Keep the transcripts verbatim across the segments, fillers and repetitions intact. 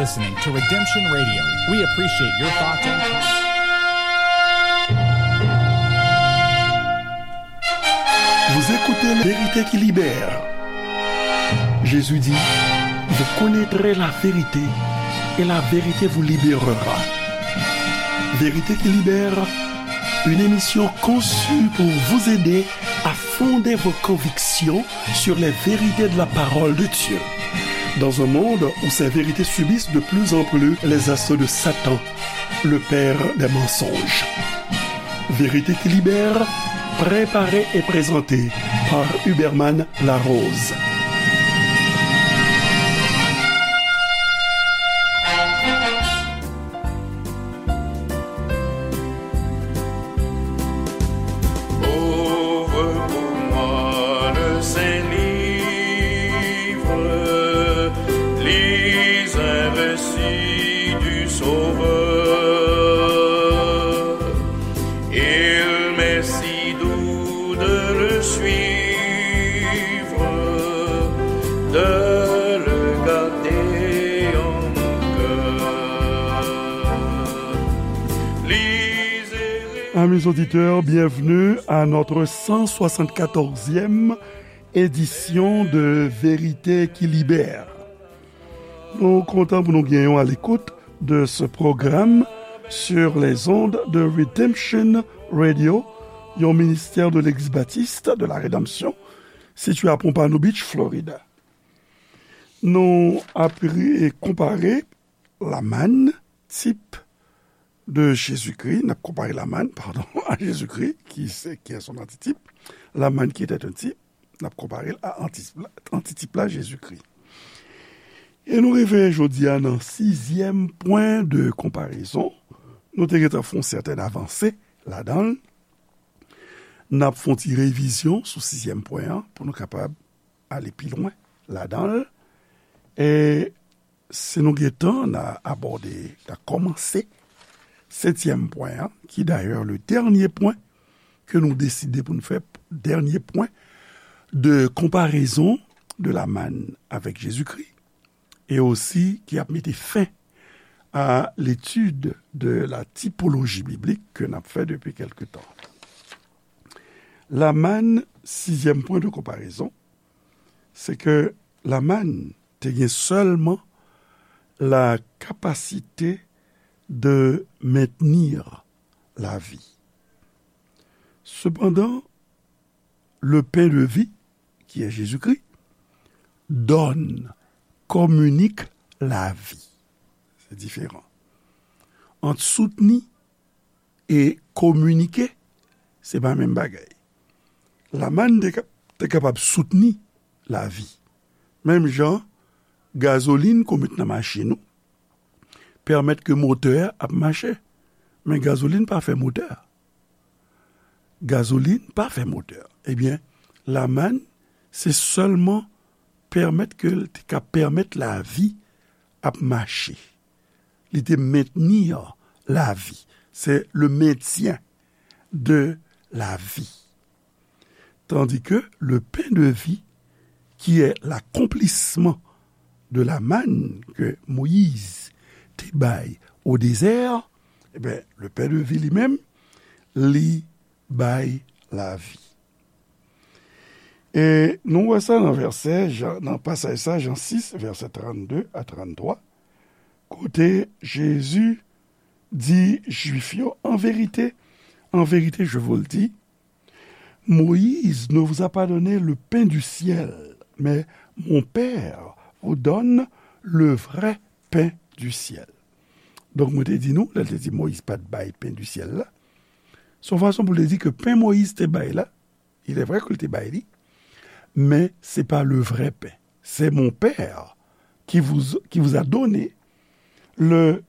Listening to Redemption Radio. We appreciate your thoughts and comments. Vous écoutez La Vérité qui libère. Jésus dit, vous connaîtrez la vérité et la vérité vous libérera. Vérité qui libère, une émission conçue pour vous aider à fonder vos convictions sur les vérités de la parole de Dieu. Dans un monde où ces vérités subissent de plus en plus les assauts de Satan, le père des mensonges. Vérité qui libère, préparée et présentée par Huberman Larose. Ouvre pour moi le saint livre, lis un récit du Sauveur. Il m'est si doux de le suivre, de le garder en mon cœur. Lisez. Amis auditeurs, bienvenue à notre cent soixante-quatorzième édition de Vérité qui libère. Nou kontan pou nou gen yon alekout de ce programme sur les ondes de Redemption Radio, yon ministè de Legliz Batis de la Redanmsyon, sitiye a Pompano Beach, Florida. Nou ap re-, konpare Lamann, tip de Jezikri, n ap konpare Lamann, padon, a Jezikri, ki se, qui est son antitip. Lamann qui était un type, n ap konpare l a antitip la, antitip la, Jezikri. E nou rive jodi a nan sizyèm pwen de konparezon. Nou te gentan fè yon sètèn avanse ladan l. N ap fè yon ti revizyon sou sizyèm pwen an pou nou kapab ale pi lwen ladan l. E si nou gen tan, n a abòde, n a kòmanse setyèm pwen an, ki dayè le dènye pwen ke nou deside pou n fè, dènye pwen de konparezon de Lamann avèk Jezikri, e osi ki ap mete fen a l'étude de la typologie biblique ke n ap fè depi kèlke tan. Lamann, sizyèm pwen de konparezon, se ke Lamann te gen sèlman la capacité de maintenir la vie. Cependant, le pain de vie, qui est Jésus-Christ, donne, communique la vie. Se diferan. Ant soutni e kominike, se pa menm bagay. Lamann te ka-, te kapab soutni lavi. Menm jan gazolin ke w met nan machin ou pèmèt ke motè a ap mache. Men gazolin pa fè motè a. Gazolin pa fè motè a. Ebyen, lamann, se sèlman pèmèt ke l te ka pèmèt lavi ap mache. Li te mentni lavi. C'est le maintien de la vie. Tandis que le pain de vie, qui est l'accomplissement de la manne que Moïse te bay au désert, eh ben, le pain de vie li menm, li bay lavi. E nou wè sa nan vèsè, Jan, nan pasaj sa, Jan sis, vèsè trannde a tranntwa, kote Jezi di Jwif yo, en vérité, en vérité, je vous le dis, Moïse ne vous a pas donné le pain du ciel, mais mon Père vous donne le vrai pain du ciel. Donk, mwen te di nou, lè l te di Moyiz pa t bay pen di syèl la, se yon fason pou l te di ke pen Moyiz te bay la, il est vrai ke l te bay li, men se pa le vrai pain. C'est mon Père qui vous, qui vous a donné le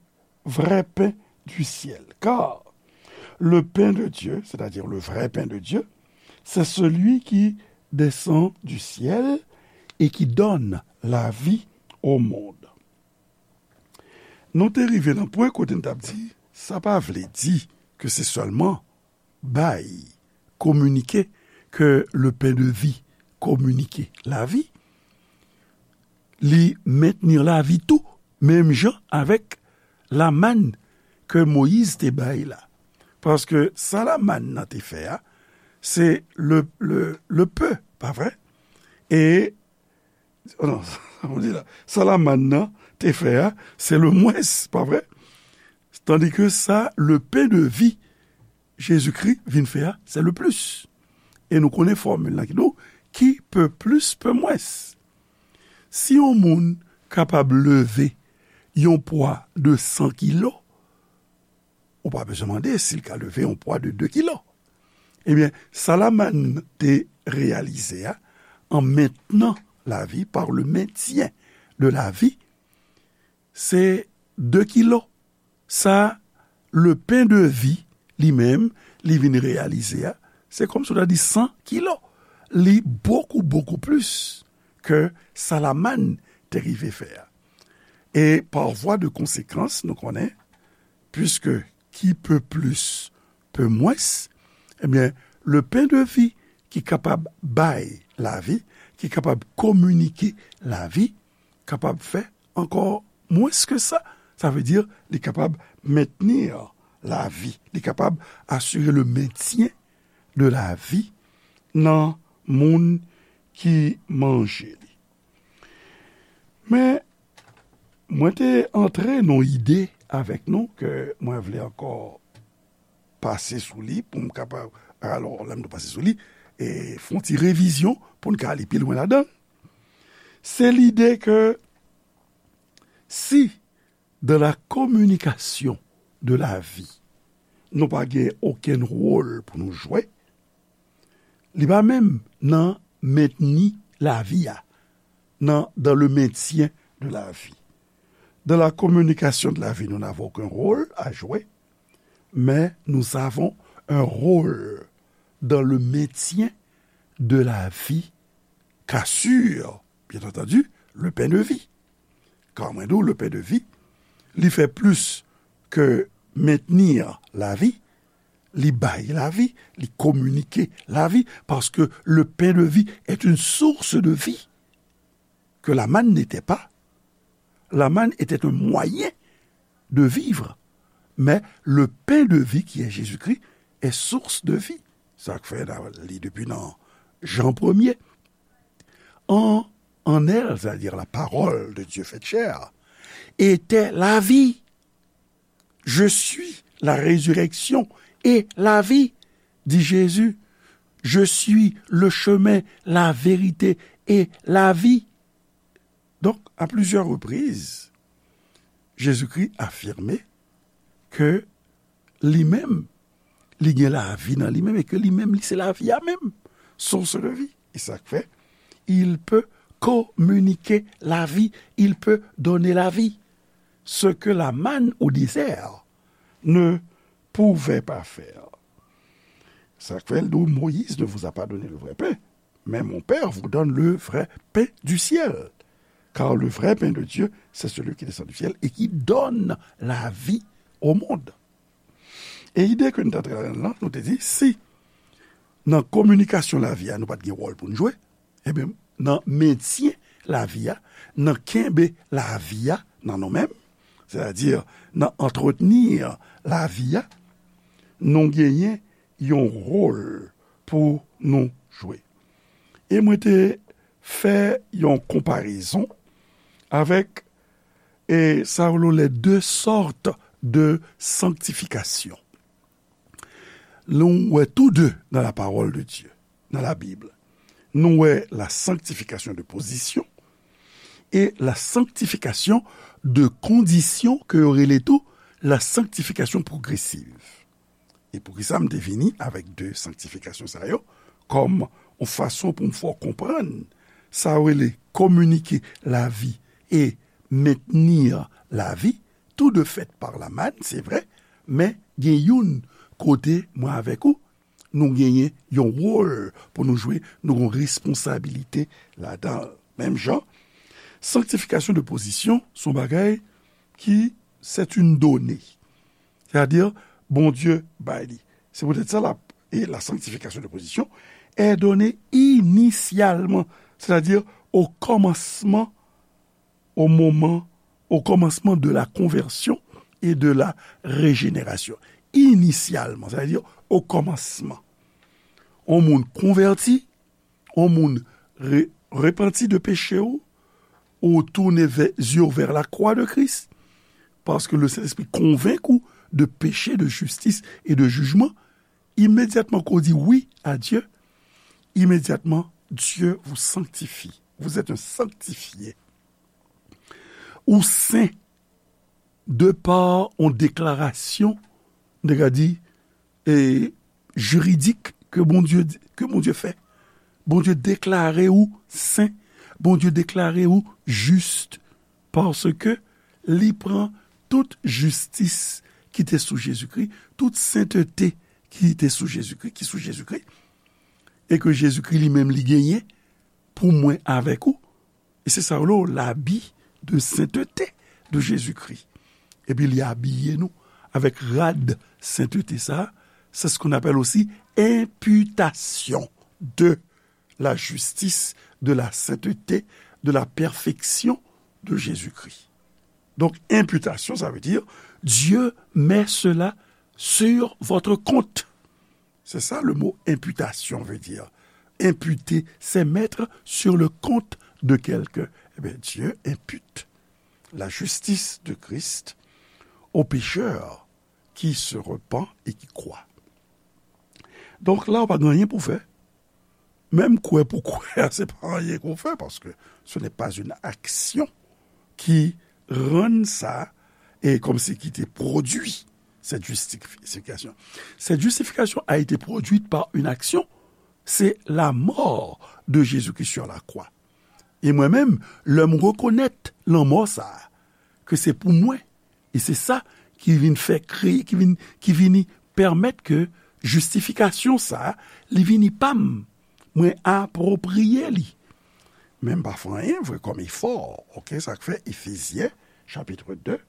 vrai pain du ciel. Car le pain de Dieu, c'est-à-dire le vrai pain de Dieu, c'est celui qui descend du ciel et qui donne la vie au monde. Nou te rive nan pwen kote n t ap di, sa pa vle di ke se sèlman bay, kominike, ke le pain de vie kominike lavi. Li mentni lavi tou, Menm jan avèk lamann ke Moyiz te bay la. Paske sa lamann nan te fè a, se le, le, le pe, pa vre? E, oh non, sa m di la, sa lamann nan te fè a, se le mwens, pa vre? Tandike sa, le pen de vi, Jezikri vin fè a, se le plis. E nou konnen fòmil la ki di w, qui peut plus, peut moins. Si yon moun kapab leve yon pwa de san kilo, ou pa bezwen mande si l ka leve yon pwa de de kilo. Ebyen, sa lamann te reyalize a, en maintenant la vie, par le maintien de la vie, se de kilo. Sa, le pen de vi, li menm, li vin reyalize a, se kòmsi w ta di san kilo. Li bokou, bokou plis ke sa lamann te rive fè a. E pa vwa de konsekans, nou konnen, puiske qui peut plus, peut moins, ebyen, le pen de vi ki kapab bay lavi, ki kapab kominike lavi, kapab fè ankò mwens ke sa. Sa vle di, li kapab mentni lavi, li kapab asire le mentyen de lavi nan moun ki manje li. Men, mwen te antre nan ide avèk nou ke mwen vle ankò pase sou li pou m kapab, alò, lè m di pase sou li, e fè yon ti revizyon pou n ka ale pi lwen ladan l. Se lide ke si dans la communication de la vie, nou pa gen okenn wòl pou nou jwe, li pa menm nan mentni lavi a, nan, dans le maintien de la vie. Dans la communication de la vie, nous n'avons aucun rôle à jouer, mais nous avons un rôle dans le maintien de la vie qu'assure, bien entendu, le pain de vie. Kan mwen di w le pain de vie, li fè plis ke mentni lavi, li bay lavi, li kominike lavi, paske le pain de vie est une source de vie que la manne n'était pas. La manne était un moyen de vivre, mais le pain de vie qui est Jésus-Christ est source de vie. Sa k fè n a li depi nan Jan premye. En, en elle, c'est-à-dire la parole de Dieu faite chair, était la vie. Je suis la résurrection et la vie, dit Jésus. Je suis le chemin, la vérité et la vie. Donc, à plusieurs reprises, Jésus-Christ affirmait que li menm, li gen lavi nan li menm e ke li menm, li se lavi a menm, source de vie. E sa k fè, il peut communiquer la vie, il peut donner la vie. Ce que la manne au désert ne pouvait pas faire. Sa k fè, l di, Moïse ne vous a pas donné le vrai pain, mais mon Père vous donne le vrai pain du ciel. Car le vrai pain de Dieu, c'est celui qui descend du ciel et qui donne la vie au monde. E ide ke nou t ap travay la, nou te di, si nan kominikasyon lavi a, nou pa t gen wòl pou n jwe, ebyen, nan mentyen lavi a, nan kenbe lavi a nan nou menm, sètadi nan antretni lavi a, nou genyen yon wòl pou nou jwe. E mwen te fè yon konparezon avèk, e sa yo rele les deux sortes de sanctification. Nou wè tou de nan la parole de Dieu, nan la Bible. Nou wè la sanctification de position e la sanctification de condition ke yo rele tou la sanctification progressive. E poukisa m te vini avèk de sanktifikasyon sa yo kòm yon fason pou m fè w konprann sa yo rele kominike lavi e mentni lavi, tou de fèt pa la mann, se vre, men gen youn kote mwen avèk ou, nou genyen yon wòl pou nou jwe, nou gen yon responsabilite ladan l. Menm jan, sanktifikasyon de pozisyon se yon bagay ki, c'est une donnée. Sètadi, Bondye bay li. Se poutèt sa, la, e la sanctification de position est donnée initialement, c'est-à-dire au commencement, au moment Au commencement de la conversion et de la régénération. Inisyalman, sa vle di o kòmansman. On moun konvèti, on moun re, repanti de peche w, ou tounen vè, zye w vè la kwa de Kris, paske le Sentespri konvenk ou de peche, de jistis e de jijman, imedyatman ke w di wi a Dye, imedyatman Dye vous sanctifie. Vous êtes un sanctifié. Ou sen de pa yon deklarasyon, nèg la di, e, jiridik ke Bondye, ke Bondye fè. Bondye deklare ou sen. Bondye deklare ou jis paske li pran tout jistis ki te sou Jezikri, tout sentete ki te sou Jezikri, ki sou Jezikri, e ke Jezikri li menm li genyen pou mwen avèk ou. E se sa yo rele l'habit de sainteté de Jésus-Christ. Epi li abiye nou avèk rad sentete sa. C'est ce qu'on appelle aussi imputation de la justice, de la sainteté, de la perfection de Jésus-Christ. Donc, imputation, ça veut dire Dieu met cela sur votre compte. C'est ça le mot imputation veut dire. Imputer, c'est mettre sur le compte de quelqu'un. Eh bien, Dieu impute la justice de Christ au pécheur qui se repent et qui croit. Donk la, ou pa gen anyen pou fè. Menm kwè pou kwè, se pa anyen ke w fè, paske ce n'est pas une action qui rend ça, et comme si qui te produit cette justification. Cette justification a été produite par une action, c'est la mort de Jésus-Christ sur la croix. E mwen menm, lè m rekonèt lanmò sa a, ke se pou mwen, e se sa ki vin fè kreye, ki vin, ki vini pèmèt ke jistifikasyon sa a, li vini pa m, mwen apwopriye li. Men m pa fè anyen vre kòm efò, oke, sa k fè Efezyen, chapitre deux,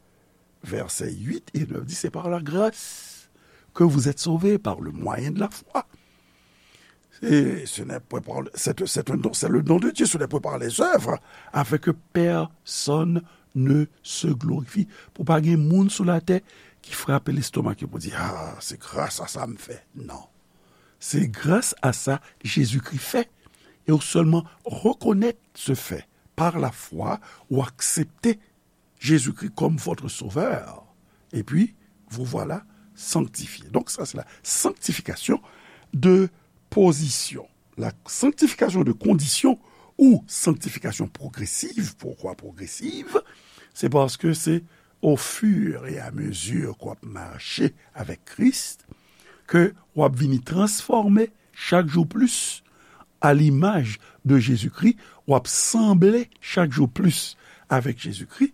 versets huit et neuf dit, c'est par la grâce que vous êtes sauvés par le moyen de la foi. Et ce n'est point par, c'est, c'est un don, c'est le don de Dieu, ce n'est point par les œuvres, afin que personne ne se glorifie. Pou pa gen moun sou latè ki frape lestomak yo pou di, ah, se gras a sa m fè. Non. Se gras a sa Jezikri fè. E ou sèlman rekonèt se fè. Par la foi, ou aksepte Jésus-Christ comme votre sauveur. Et puis, vous voilà sanctifié. Donc, ça, c'est la sanctification de position. La sanctification de condition ou sanctification progressive. Pourquoi progressive? C'est parce que c'est au fur et à mesure qu'on marche avec Christ que w ap vini transfòme chak jou plis a limaj de Jezikri, w ap sanble chak jou plis avèk Jezikri,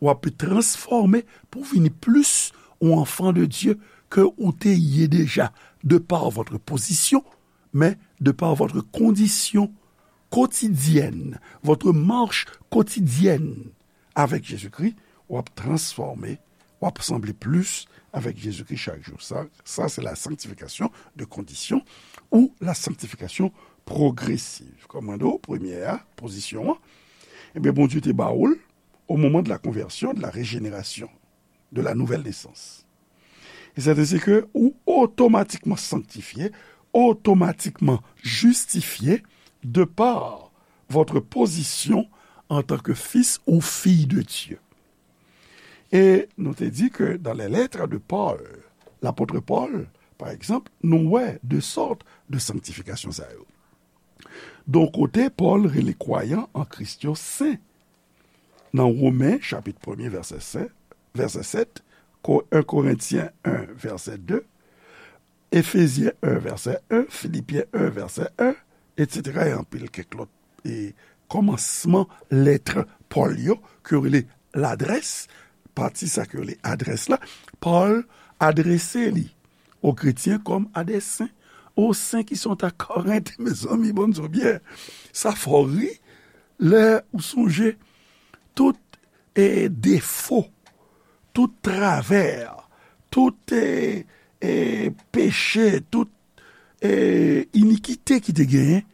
w ap transfòme pou vini plis yon enfant de Dieu ke ou te ye deja, de par votre position, mais de par votre condition quotidienne, votre marche quotidienne avec Jésus-Christ, w ap transfòme, w ap sanble plis avèk Jezikri chak jou. Sa, sa se la sanctification de condition ou la sanctification progressive. Kòm mwen di w, premye a, pozisyon an, ebyen, Bondye te ba ou l au moment de la conversion, de la régénération, de la nouvelle naissance. E sèten se ke ou otomatikman sanktifye, otomatikman jistifye de par votre position en tant que fils ou fille de Dieu. E nou te di ke dans les lettres de Paul, l'apôtre Paul, par exemple, nou wè de sòt de sanktifikasyon sa yo. Donk, kote Pòl rele kwayan an Kris yo sen. Nan Women, chapit premye, vèsè sèt, vèsè sèt, Ko-, un Korentyen un, vèsè de, Efezyen un, vèsè un, Filipyen un, vèsè un, etsetera, e anpil kèk lòt, e kòmansman lèt Pòl yo, ke yo rele ladrès, pati sa ke yo rele adrès la, Pòl adrese li aux chrétiens comme à des saints, aux saints qui sont à Corinthe, mezanmi, bon, nou byen. Sa fè w ri, lè ou sonje tout, e, defo, tout travè, tout, e, e, peche, tout, e, inikite ki te genyen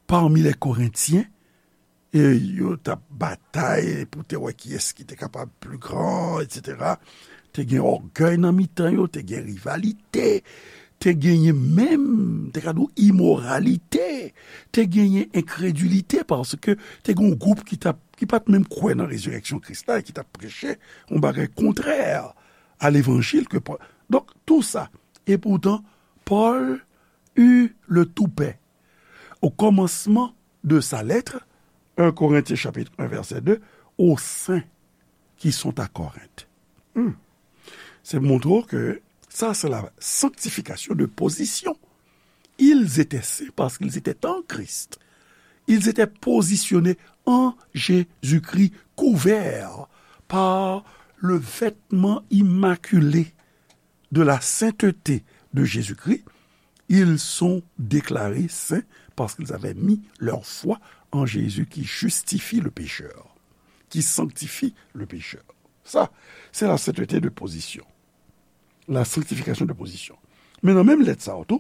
parmi les Corinthiens, e yo t ap batay pou te wè kiyès ki te kapab pli gran, etsetera. Te gen ògèy nan mitan yo, te gen rivalite, te genyen menm, te ka di w, imoralite, te genyen enkredilite, paske te gen yon gwoup ki t ap, ki pa t menm kwè nan rezirèksyon Kris la, e ki t ap preche yon bagay kontrè a levanjil ke Pòl. Donk, tou sa. E poutan, Pòl eut le toupet au commencement de sa lettre, un Corinthiens chapitre un verset deux, aux saints qui sont à Corinthe. Hmm. Se montre ke sa, se la sanctification de position. Ils étaient saints parce qu'ils étaient en Christ. Ils étaient positionnés en Jésus-Christ, couverts par le vêtement immaculé de la sainteté de Jésus-Christ. Ils sont déclarés saints parce qu'ils avaient mis leur foi en Jésus qui justifie le pécheur, qui sanctifie le pécheur. Sa, se la sainteté de position. La sanctification de position. Men nan menm lèt sa a tou,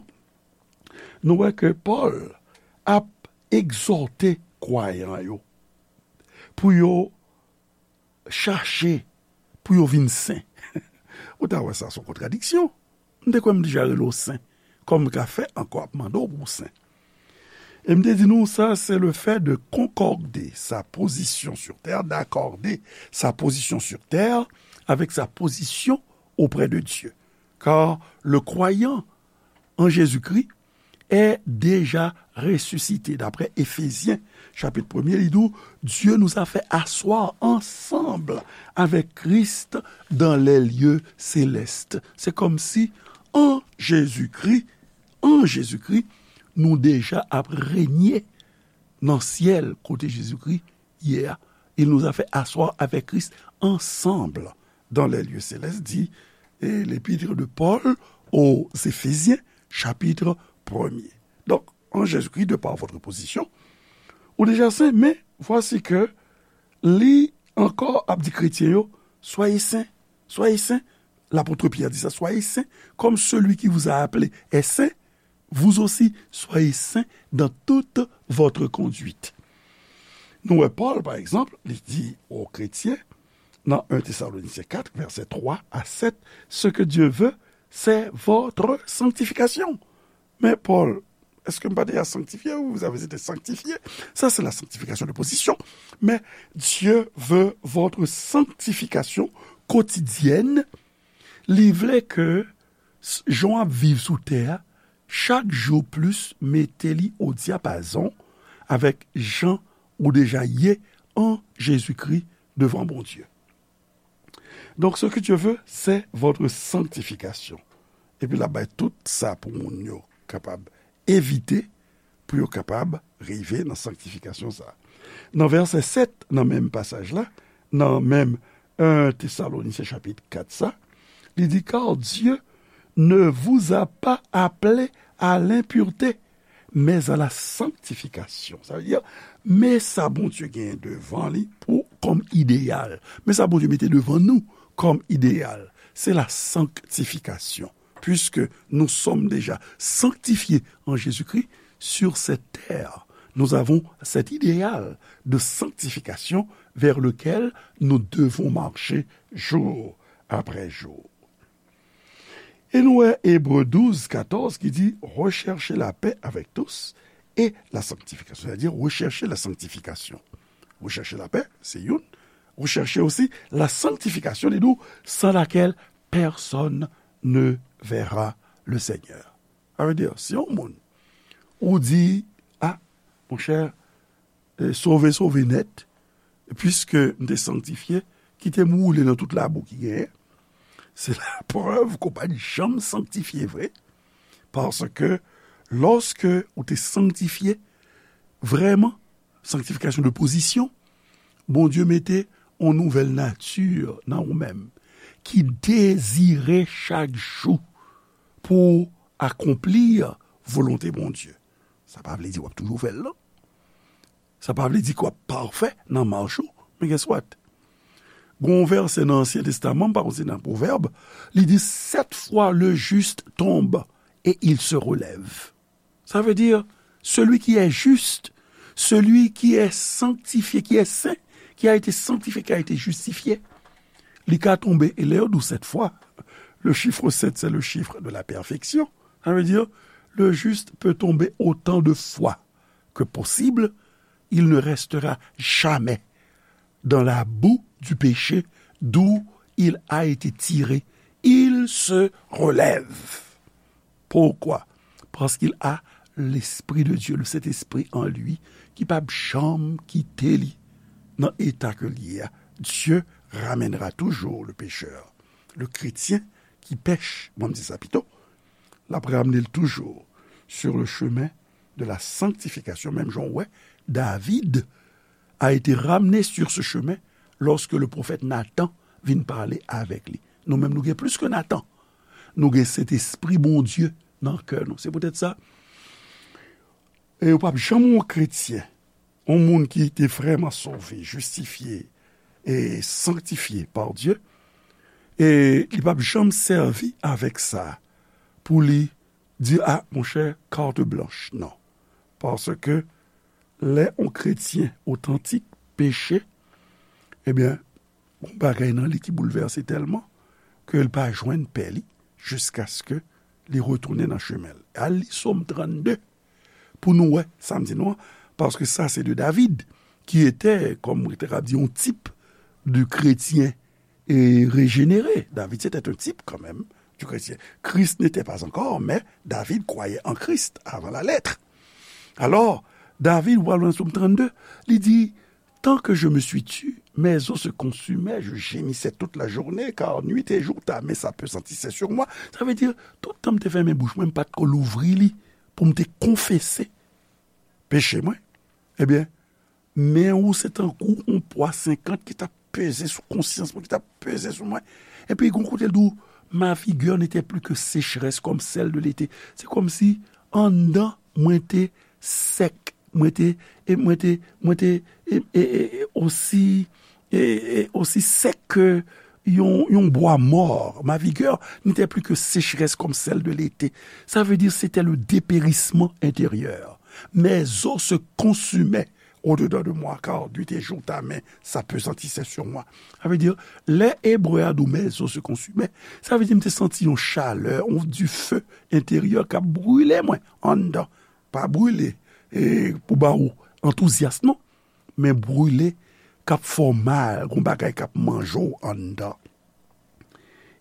nou wè ke Pòl ap egzòte kwayan yo pou yo chache pou yo vin sen. Ou ta wè sa, se yon kontradiksyon. M te kwè m deja rele w sen. Kòman m ka fè ankò ap mande w pou w sen? E m te di nou, sa, c'est le fait de concorder sa position sur terre, d'accorder sa position sur terre avec sa position auprès de Dieu. Car le croyant en Jésus-Christ est déjà ressuscité. D'après Éphésiens, chapitre premier, li di w, Dieu nous a fait asseoir ensemble avec Christ dans les lieux célestes. Se kòmsi, an Jezikri, an Jezikri, nou deja ap renye nan syèl kote Jezikri ye a. Il nous a fait asseoir avec Christ ensemble dans les lieux célestes, dit, eh, l'épître de Paul aux Éphésiens, chapitre premier. Donk, en Jésus-Christ, de par votre position, ou deja sen, men vwasi ke li ankò ap di kretyen yo, soyez saints, soyez saints. L'apôtre Pierre dit ça, soyez saints, comme celui qui vous a appelé est saint, vous aussi, soyez saints dans toute votre conduite. Nou wè Pòl, pa egzanp, li di o kretyen, nan un Thessaloniciens quatre, verset trois à sept, ce que Dieu veut, c'est votre sanctification. Men Pòl, èske m pa deja sanktifye ou? Vous avez été sanctifiés. Ça, c'est la sanctification de position. Mais Dieu veut votre sanctification quotidienne. Li vle ke s-, jan w ap viv sou tè a, chak jou plis mete li o dyapazon avèk jan ou deja ye an Jezikri devan Bondye. Donc, ce que Dieu veut, c'est votre sanctification. Epi l ap bay tout sa pou moun yo kapab evite, pou yo kapab rive nan sanktifikasyon sa a. Nan vèsè sèt, nan menm pasaj la, nan menm un Thessaloniciens chapitre quatre sa, li di, car Dieu ne vous a pas appelés à l'impureté, mais à la sanctification. Sa vle di, men sa Bondye gen devan li pou, kòm ideyal. Men sa Bondye mete devan nou kòm ideyal. C'est la sanctification. Puisque nous sommes déjà sanctifiés en Jésus-Christ sur cette terre, nous avons cet idéal de sanctification vers lequel nous devons marcher jour après jour. E nou wè Ebre douz katòz ki di, recherchez la paix avec tous et la sanctification. C'est-à-dire, recherchez la sanctification. Recherchez la paix, se youn. Recherchez aussi la sanctification, li di w, sans laquelle personne ne verra le Seigneur. Sa vle di, si yon moun, ou di, a, monchè, e, sove, sove nèt, puiske m te sanktifye, kite m woule nan tout labou ki genyen. Se laprèv ke w pa t janm sanktifye vre. Paske, lòske ou te sanktifye, vrèman, sanktifikasyon de pozisyon, Bondye mete yon nouvèl nati nan ou menm, ki dezire chak jou pou akonpli volonte Bondye. Sa pa vle di w ap toujou fè l, non. Sa pa vle di ke w ap pafè nan mach ou, men guess what? Gon vèsè nan Ansyen Testaman, m pa konn si nan Pwovèb, li di, sept fois le juste tombe et il se relève. Ça veut dire, celui qui est juste, celui qui est sanctifié, qui est saint, qui a été sanctifié, qui a été justifié, li ka tonbe, e lè yo di w sèt fwa, le chiffre sept, c'est le chiffre de la perfection. Ça veut dire, le juste peut tomber autant de fois que possible, il ne restera jamais dans la boue du péché d'où il a été tiré. Il se relève. Pourquoi? Parce qu'il a l'Esprit de Dieu, le Saint-Esprit en lui, ki p ap janm kite li nan eta ke l ye a. Dieu ramènera toujours le pécheur, le chrétien qui pèche, mwen m di sa pito, l ap ramne l toujou sur le chemin de la sanctification. Menm jan w wè, David a été ramené sur ce chemin lorsque le prophète Nathan vin pale avèk li. Nou menm, nou gen plis ke Nathan. Nou gen Sentespri Bondye nan kè nou. Se poutèt sa, e yo p ap janm yon kretyen, yon moun ki te vrèman sove, jistifye e sanktifye pa Dye, e li p ap janm sèvi avèk sa pou li di, a, monchè, carte blanche. Non. Paske lè yon kretyen otantik peche, ebyen, yon bagay nan li ki boulvèse tèlman ke l pa jwenn pè li jiskaske li retounen nan chemen l. Al li Sòm trannde pou nou wè sa m di nou an, paske sa se de David, ki etè, kòm mwen te ka di, yon tip de kretyen e rejénéré. David, c'était un type quand même du chrétien. Christ n'était pas encore, mais David croyait en Christ avant la lettre. Alors, David, ou al nan Sòm trannde, li di, tant que je me suis tu, mes os se consumaient, je gémissais toute la journée, car nuit et jour ta main s'appesantissait sur moi. Sa vle di, tout tan m te fèmen bouch mwen, m pa t ko louvri li pou m te konfese peche mwen. Ebyen, men ou se tankou yon pwa senkant ki t ap peze sou konsyans mwen, ki t ap peze sou mwen. Epi, gon kote l di w, ma vigueur n'était plus que sécheresse comme celle de l'été. Se kòmsi anndan mwen te sèk, mwen te, e mwen te, mwen te, e, e, e, e osi, e, e osi sèk ke yon, yon bwa mò. Ma vigueur n'était plus que sécheresse comme celle de l'été. Ça veut dire, c'était le dépérissement intérieur. Mes os se consumaient au-dedans de moi, car nuit et jour ta main s'appesantissait sur moi. Sa vle di, lè Ebre a di w mes os se consumaient, sa vle di m te santi yon chalè, yon dife enteryè k ap brile mwen anndan. Pa brile, e, pou ba ou antouzyas, non, men brile k ap fè w mal, gon bagay k ap manje w anndan.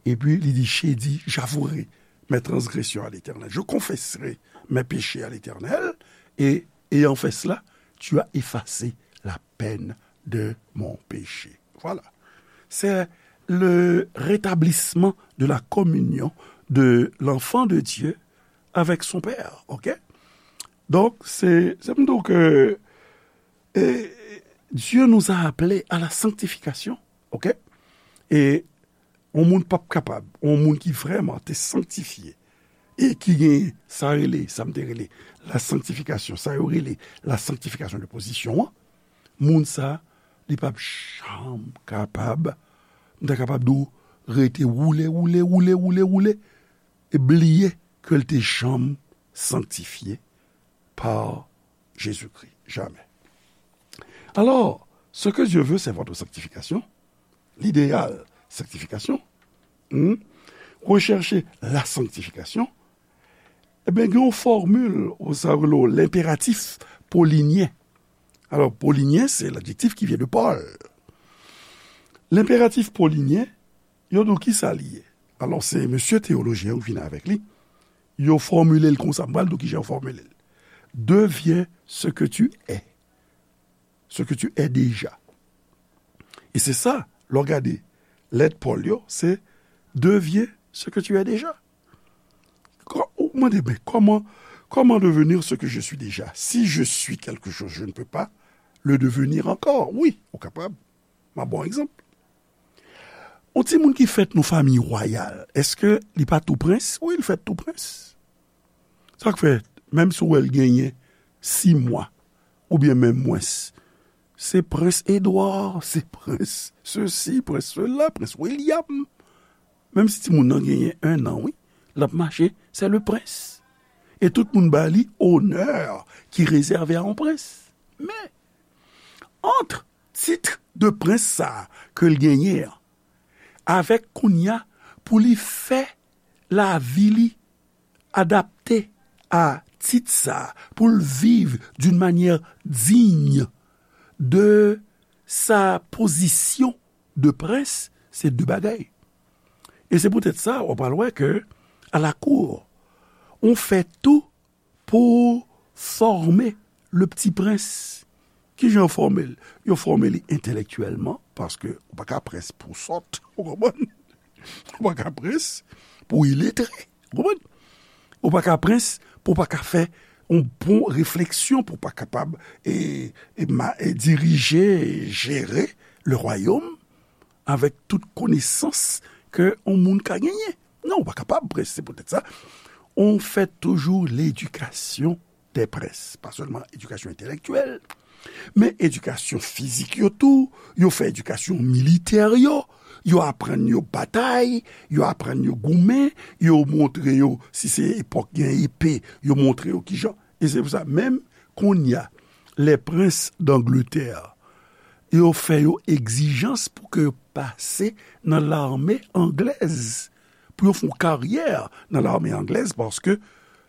Epi li di, j'ai dit, j'avouerai mes transgressions à l'Éternel. Je confesserai mes péchés à l'Éternel, et ayant fait cela, tu as effacé la peine de mon péché. Voilà. C'est le rétablissement de la communion de l'enfant de Dieu avec son Père. OK? Donc, c'est, c'est donc, euh, euh, Dieu nous a appelés à la sanctification. OK? E yon moun p ap kapab, yon moun ki vrèman te sanktifye, e ki gen sa rele, sa m te rele, la sanctification, sa yo rele la sanctification de position an, moun sa, li p ap janm kapab, m ta kapab di w, rete woule, woule, woule, woule, woule, e bliye ke l te janm sanktifye pa Jezikri. Jamè. Alors, ce que Dieu veut, c'est votre sanctification. L'idéal, sanctification. Hmm? Rechercher la sanctification. Ebyen, gen yon fòmil, ou sa rele w lenperatif polinyen. Alò, polinyen, se ladjektif ki vyen de Pòl. Lenperatif polinyen, yo di w ki sa li ye. Alò, se mesye teyolojyen yo vin avèk li. Yo fòmile l konsa, m pral di w kijan yo fòmile l. Deviens ce que tu es. Ce que tu es déjà. E se sa, lè w gade lèt Pòl yo, se deviens ce que tu es déjà. Kò-, ou mande, ben, comment, comment devenir ce que je suis déjà? Si je suis quelque chose, je ne peux pas le devenir encore. Wi, ou kapab. M ap ba w egzanp. Yon timoun ki fèt nan fanmi wayal, èske li pa tou prens? Wi, li fèt tou prens. Sa k fè, menm si w wè l genyen sis mwa, oubyen menm mwens, se prens Edwa, se prens sesi, prens sela, prens William. Menm si timoun nan genyen en an, wi, l ap mache, c'est le prince. E tout moun ba li onè ki rezève a yon prens. Men, ant tit de prens sa a ke l genyen an, avèk kounye a pou li fè lavi li adapte a tit sa a, pou l viv d'une manière digne de sa position de prince, se de bagay. E se poutèt sa, w pral wè ke à la cour, on fait tout pour former le petit prince. Kijan yo fòme l? Yo fòme li entèlektyèlman, paske ou pa ka prens pou sòt, ou konprann? Ou pa ka prens pou iletre, ou konprann? Ou pa ka prens pou pa ka fè yon bon refleksyon, pou pa kapab e, e, ma- e dirije, e jere le royaume avèk tout konesans ke yon moun ka genyen. Non, ou pa kapab prens, se poutèt sa. On fait toujours l'éducation des princes. Pa sèlman edikasyon entèlektyèl, men edikasyon fizik yo tou. Yo fè edikasyon militè yo. Yo aprann yo batay, yo aprann yo goumen, yo montre yo, si se epòk gen epe, yo montre yo kijan. E se pou sa, menm kounye a, les princes d'Angleterre, yo fè yo egzijans pou ke yo pase nan lame anglèz, pou yo fè yon karyè nan lame anglèz, paske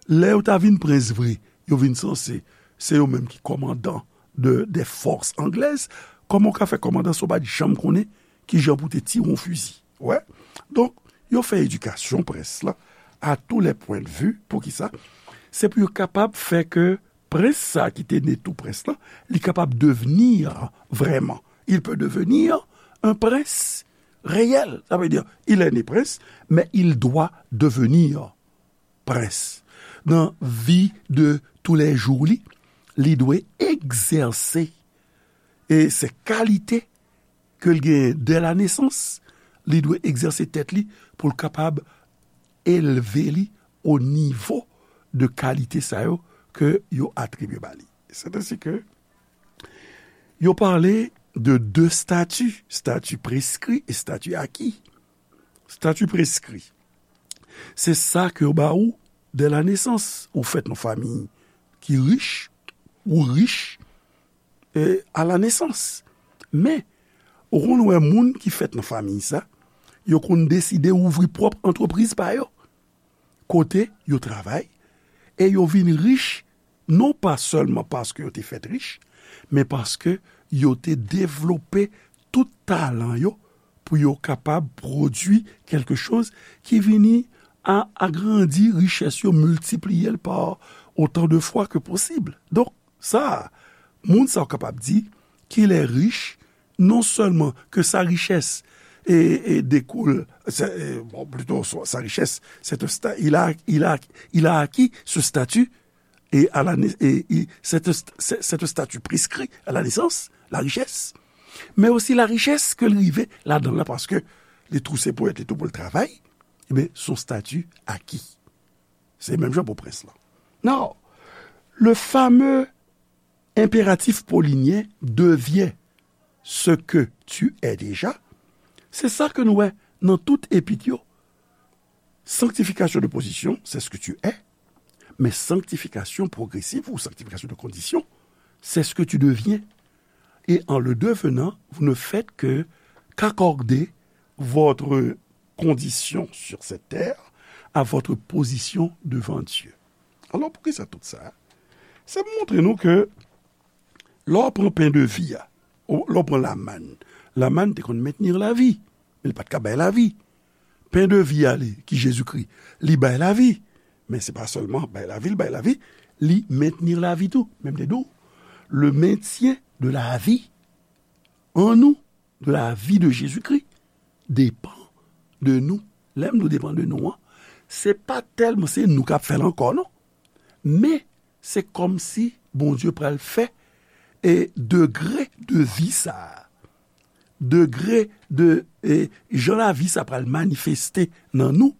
lè yo ta vin prens vre, yo vin sanse se yo menm ki kòmandan de, des forces anglaises. Kòman w ka fè kòmandan si w pa t janm konnen kijan pou te tire yon fizi? Wè. Donk, yo fè edikasyon prens lan à tous les points de vue. Poukisa? Se pou yo kapab fè ke prens sa ki te ne tou prens lan, li kapab devni vrèman. Il peut devenir un prince réel. Ça veut dire, il est né prince, mais il doit devenir prince. Nan vi de toulèjou li, li dwe egzèse. E se kalite ke l genyen dè la nesans, li dwe egzèse tèt li pou l kapab elve li o nivo de kalite sa yo ke yo atribye ba li. C'est ainsi que yo pale de de stati, stati preskri e stati aki. Stati preskri, se sa ke yo ba ou dè la nesans. Ou fèt nan fanmi ki rich, ou rich, e, à la naissance. Men, ou konn wè moun ki fèt nan fanmi sa, yo konn deside ouvri pwòp antrepriz pa yo. Kote yo travay, e yo vin rich, non pa sèlman paske yo te fèt rich, men paske yo te devlope tout talan yo pou yo kapab pwodui kèlke choz ki vini a agrandi richès yo, miltipliye l pa otan de fwa ke posib. Donk, sa, moun sa w kapab di qu'il est riche, non seulement que sa richès e, e dekoule, c'est, e, bon, plutôt, sa, sa richès, c'est un sta- il a, il a, il a acquis ce statut et à la nai- et, et c'est un st- c'est, c'est un statut prescrit à la naissance, la richesse, men osi la richès ke l rive ladan l la, paske li tou se pwèt, li tou pou l travay, ebyen, son stati aki. Se menm jan pou prens lan. Now, le fameux impératif paulinien devient ce que tu es déjà, se sa ke nou wè nan tout epit yo. Sanctification de position, c'est ce que tu es, mais sanctification progressive ou sanctification de condition, c'est ce que tu deviens. Et en le devenant, vous ne faites que qu'accorder votre condition sur cette terre à votre position devant Dieu. Alò, poukisa tout sa? Se pou montre nou ke lè w pran pen de vi a, ou lè w pran lamàn, lamàn te konn mentni lavi, men li pa t ka bay lavi. Pen de vi a, li, ki Jezikri, li bay lavi. Men se pa sèlman bay lavi, li bay lavi, li mentni lavi tou. Men m te di w, le maintien de la vie en nous, de la vie de Jésus-Christ, depan de nou. Lè m di w depan de nou an, se pa tèlman se nou k ap fè l ankò, non. Men, se kòmsi Bondye pral fè, e, degre de vi sa a, degre de, e, jan lavi sa pral manifeste nan nou,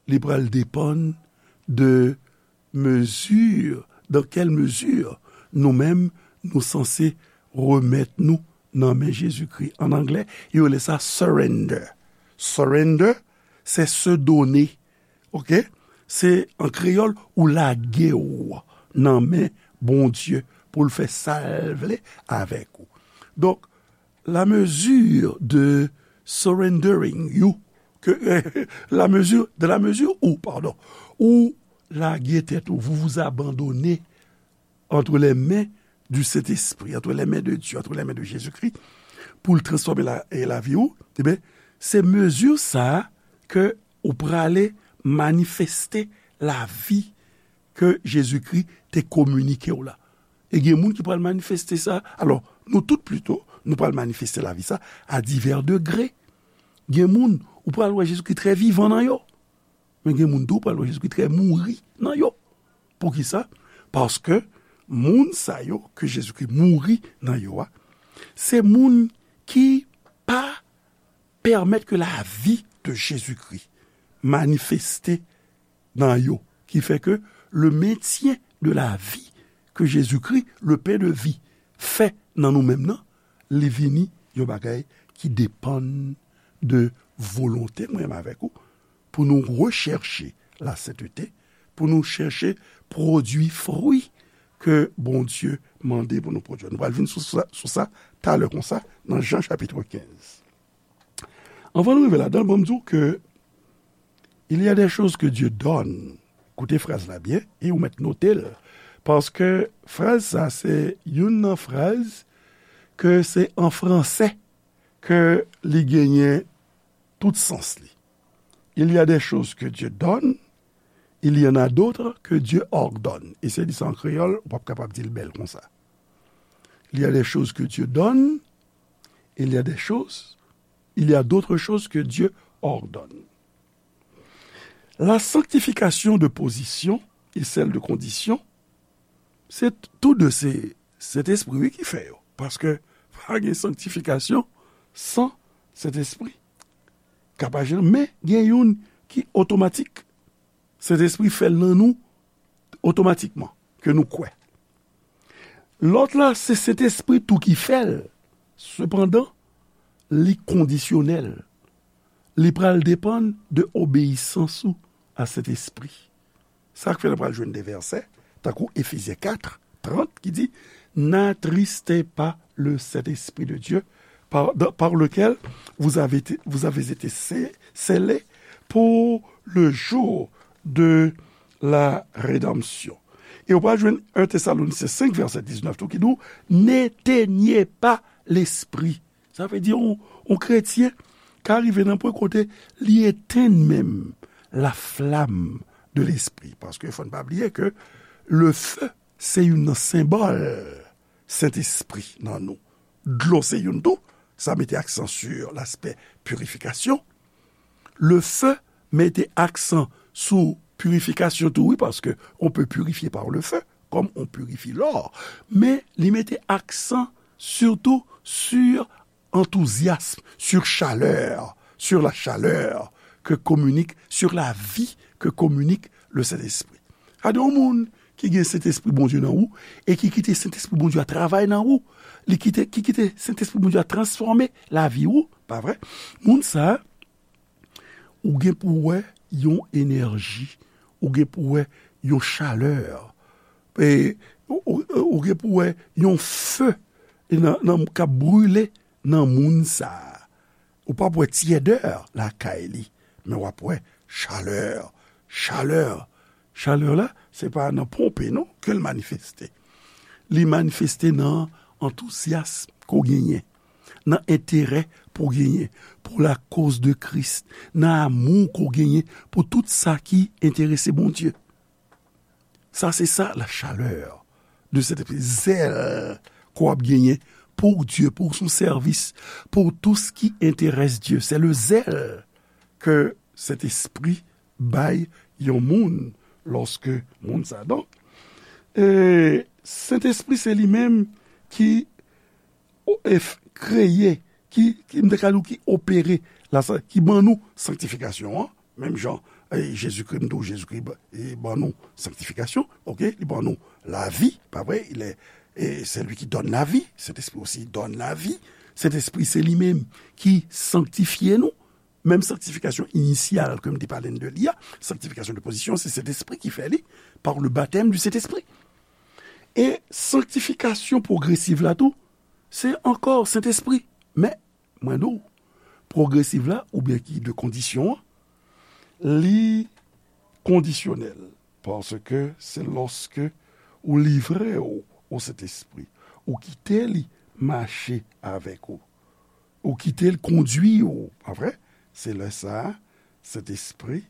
li pral depann de mezi, dans quelle mesure nou menm, nou sanse remèt nou nan men Jezikri. An anglè, yo rele sa surrender. Surrender, c'est se donner. Oke? Se, an kreyòl, ou lage w nan men Bondye pou l fè sa l vle avèk ou. Donk, la mesure de surrendering you, que, la mesure, dans la mesure où, pardon, ou lage tèt ou, vous vous abandonnez entre les mains du Saint-Esprit, entre les mains de Dieu, entre les mains de Jésus-Christ, pou l transfòme la, e lavi ou, ebyen, se mezi sa a ke ou prale manifeste lavi ke Jezikri te kominike w la. E gen moun ki pral manifeste sa. Alò, nou tout plito, nou pral manifeste lavi sa a divè degre. Gen moun, ou pral wè Jezikri trè vivan nan yo. Men gen moun tou, ou pral wè Jezikri trè mouri nan yo. Poukisa? Paske moun sa yo ke Jezikri mouri nan yo a, se moun ki pa pèmèt ke lavi de Jezikri manifeste nan yo, ki fè ke le maintien de la vie que Jésus-Christ, le pain de vie, fè nan nou menm nan, li vini yon bagay ki depann de volonte mwen menm avèk ou, pou nou rechèche la sentete, pou nou chèche pwodui fwi ke Bondye mande pou nou pwodui. Nou pral vin sou sa, sou sa talè konsa, nan Jan chapit kenz. Anvan nou rive ladan l, ban m di w ke il y a des choses que Dieu donne. Koute fraz la byen, e ou mèt note l. Paske fraz sa, se youn nan fraz ke se an franse ke li genyen tout sans li. Il y a des choses que Dieu donne, il y en a d'autres que Dieu ordonne. E se di sa an kreyòl, ou p ap kapab di l bèl konsa. Il y a des choses que Dieu donne, il y a des choses, il y a d'autres choses que Dieu ordonne. La sanctification de position et celle de condition, se t-, tou de se Sentespri wi ki fè yo. Paske pa gen sanktifikasyon san Sentespri. Ka pa janm, men gen youn ki otomatik. Sentespri fè l nan nou otomatikman, ke nou kwè. Lòt la, se Sentespri tou ki fè l. Sepandan, li kondisyonèl. Li pral depann de obeyisans ou a Sentespri. Sa k fè nou pral jwenn de vèsè, tankou Efezyen kat, trant, ki di, n'attristez pas le Saint-Esprit de Dieu, par, dans, par lequel vous avez été, vous avez été sce-, scellés pour le jour de la rédemption. E ou pral jwenn en Tesalonisyen senk, vèsè diznèf tou, ki di w, n'éteignez pas l'esprit. Sa vle di, yon, yon kretyen ka rive nan pwen kote li etenn menm la flamme de l'esprit. Paske fò n pa bliye ke le feu, se youn nan senbòl Sentespri nan nou. Dlo se youn tou, sa mete aksan sur l'aspect purification. Le feu mete aksan sou purifikasyon tou, wi, paske on peut purifier par le feu, comme on purifie l'or. Men li mete aksan surtout sur enthousiasme, sur chaleur, sur la chaleur que communique, sur la vie que communique le Saint-Esprit. Gade yon moun ki gen Sentespri Bondye nan ou, e ki kite Sentespri Bondye a travay nan ou, li kite, ki kite Sentespri Bondye a transfòme lavi ou, pa vre? Moun sa a, ou gen pou wè yon enèji, ou gen pou wè yon chalè, e, ou, ou, ou gen pou wè yon fe nan, nan, k ap brile nan moun sa a. Ou p ap wè tyèdè lakay li, men w ap wè chalè. Chalè, chalè la, se pa nan ponpe non ke l manifeste. Li manifeste nan antouzyasm ke w genyen, nan enterè pou w genyen pou la cause de Christ, nan amou ke w genyen pou tout sa ki enterese Bondye. Sa se sa, la chaleur de Sentespri, zèl ke w ap genyen pou Dye, pou son sèvis, pou tout ce qui intéresse Dieu. C'est le zèl ke Sentespri bay yon moun lòske moun sa. Donk, e, Sentespri se li menm ki o-, e f-, kreye, ki, ki, m te ka di w ki opere, la, sa, ki ban nou sanktifikasyon an, menm jan, e, Jezikri, m di w Jezikri ba-, e, ban nou sanktifikasyon, oke, li ban nou lavi, pa vre, il est, et c'est lui qui donne la vie, Saint-Esprit aussi donne la vie, Sentespri se li menm ki sanktifye nou, menm sanktifikasyon inisyal ke m te pale n de li a, sanktifikasyon de pozisyon, se Sentespri ki fè li, par le baptême du Saint-Esprit. E sanktifikasyon pwogresiv la tou, se ankò Sentespri. Men, mwen di w, pwogresiv la, oubyen ki de kondisyon an, li kondisyonèl, paske se lòske ou livre w o Sentespri, ou kite li mache avèk ou, ou kite l kondui w, pa vre? Se lè sa a, Sentespri,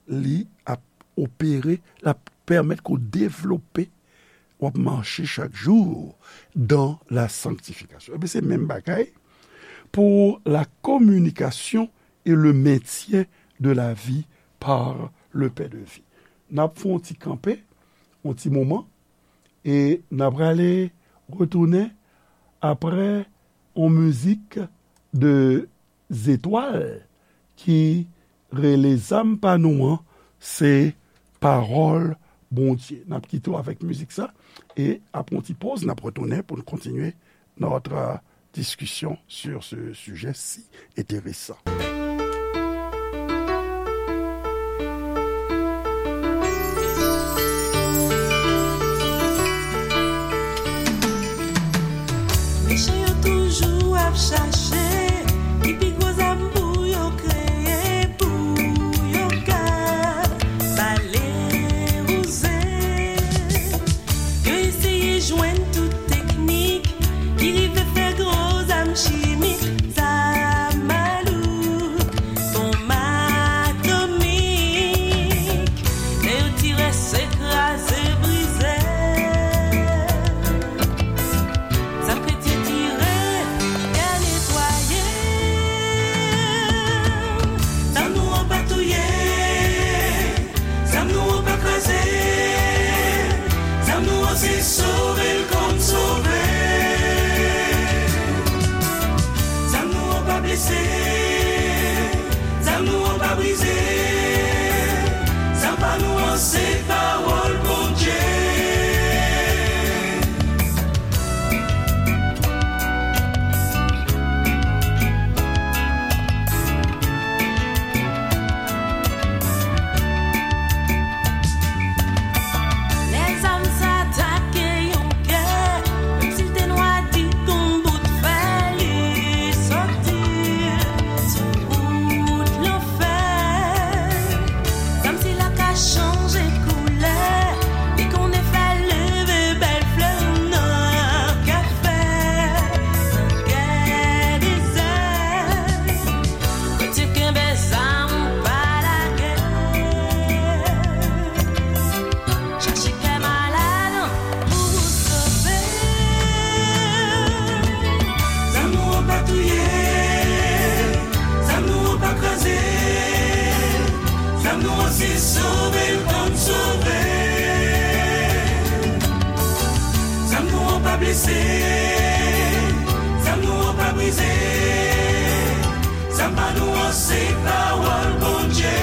li ap opere, l ap pèmèt ke w devlope, w ap mache chak jou dans la sanctification. Ebyen, se menm bagay pour la communication et le maintien de la vie par le pain de vie. N ap fè yon ti kanpe, yon ti moman, e n ap prale retounen apre yon mizik de Zetwal ki rele Zam pa nou an, se pawòl Bondye. N ap kite w avèk mizik sa, e apre yon ti poz, n ap retounen pou n kontinye notre discussion sur ce sujet si intéressant. Mechan yo toujou ap chache ki pi gwo zam pou yo kreye, pou yo ka bale wouze. Yo eseye jwenn tout teknik ki rive fè gwo zam chimik, zam malouk, bonm atomik. Lè yo tire, se kraze, brize. Zam kretyen tire, gè netwaye. Zam nou an pa touye. Zam nou an pa kraze. Zam nou an se sove l konn sove. Zam nou an pa blese. Zam nou an pa brize. Zam pa nou an se pawòl Bondye. Lè zam sa atake yon kè, menm si l te nwa di kon bout fè, li soti sou wout lanfè. Zam sila ka chanje koulè, li konnen fè leve bèl flè nan kafè, nan kè dezè. Kretyen kenbe zam ou pa lage. Chache kè malad pou ou sove. Zam nou an pa touye. Zam nou an pa kraze. Zam nou an se sove l konn sove. Zam nou an pa blese. Zam nou an pa brize. Zam pa nou an se pawòl Bondye.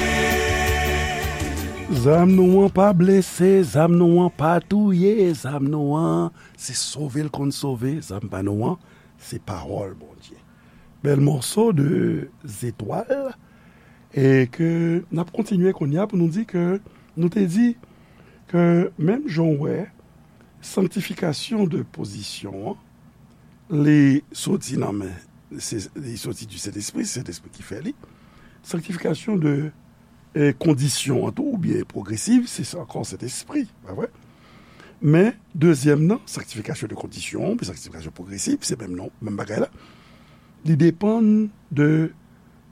Zam nou an pa blese, zam nou an pa touye, zam nou an se sove l konn sove, zam pa nou an se pawòl Bondye. Bèl mòso de Zetwal, e ke n ap kontinye kounye a pou nou di ke nou te di ke menm jan w wè sanktifikasyon de pozisyon an, li soti nan men, se, li soti di Sentespri, se Sentespri ki fè li. Sanktifikasyon de, e, kondisyon an tou, oubyen pwogresiv, se, se ankò Sentespri, pa vre? Men, dezyèm nan, sanktifikasyon de kondisyon, oubyen sanktifikasyon pwogresiv, se menm non, menm bagay la. Li depann de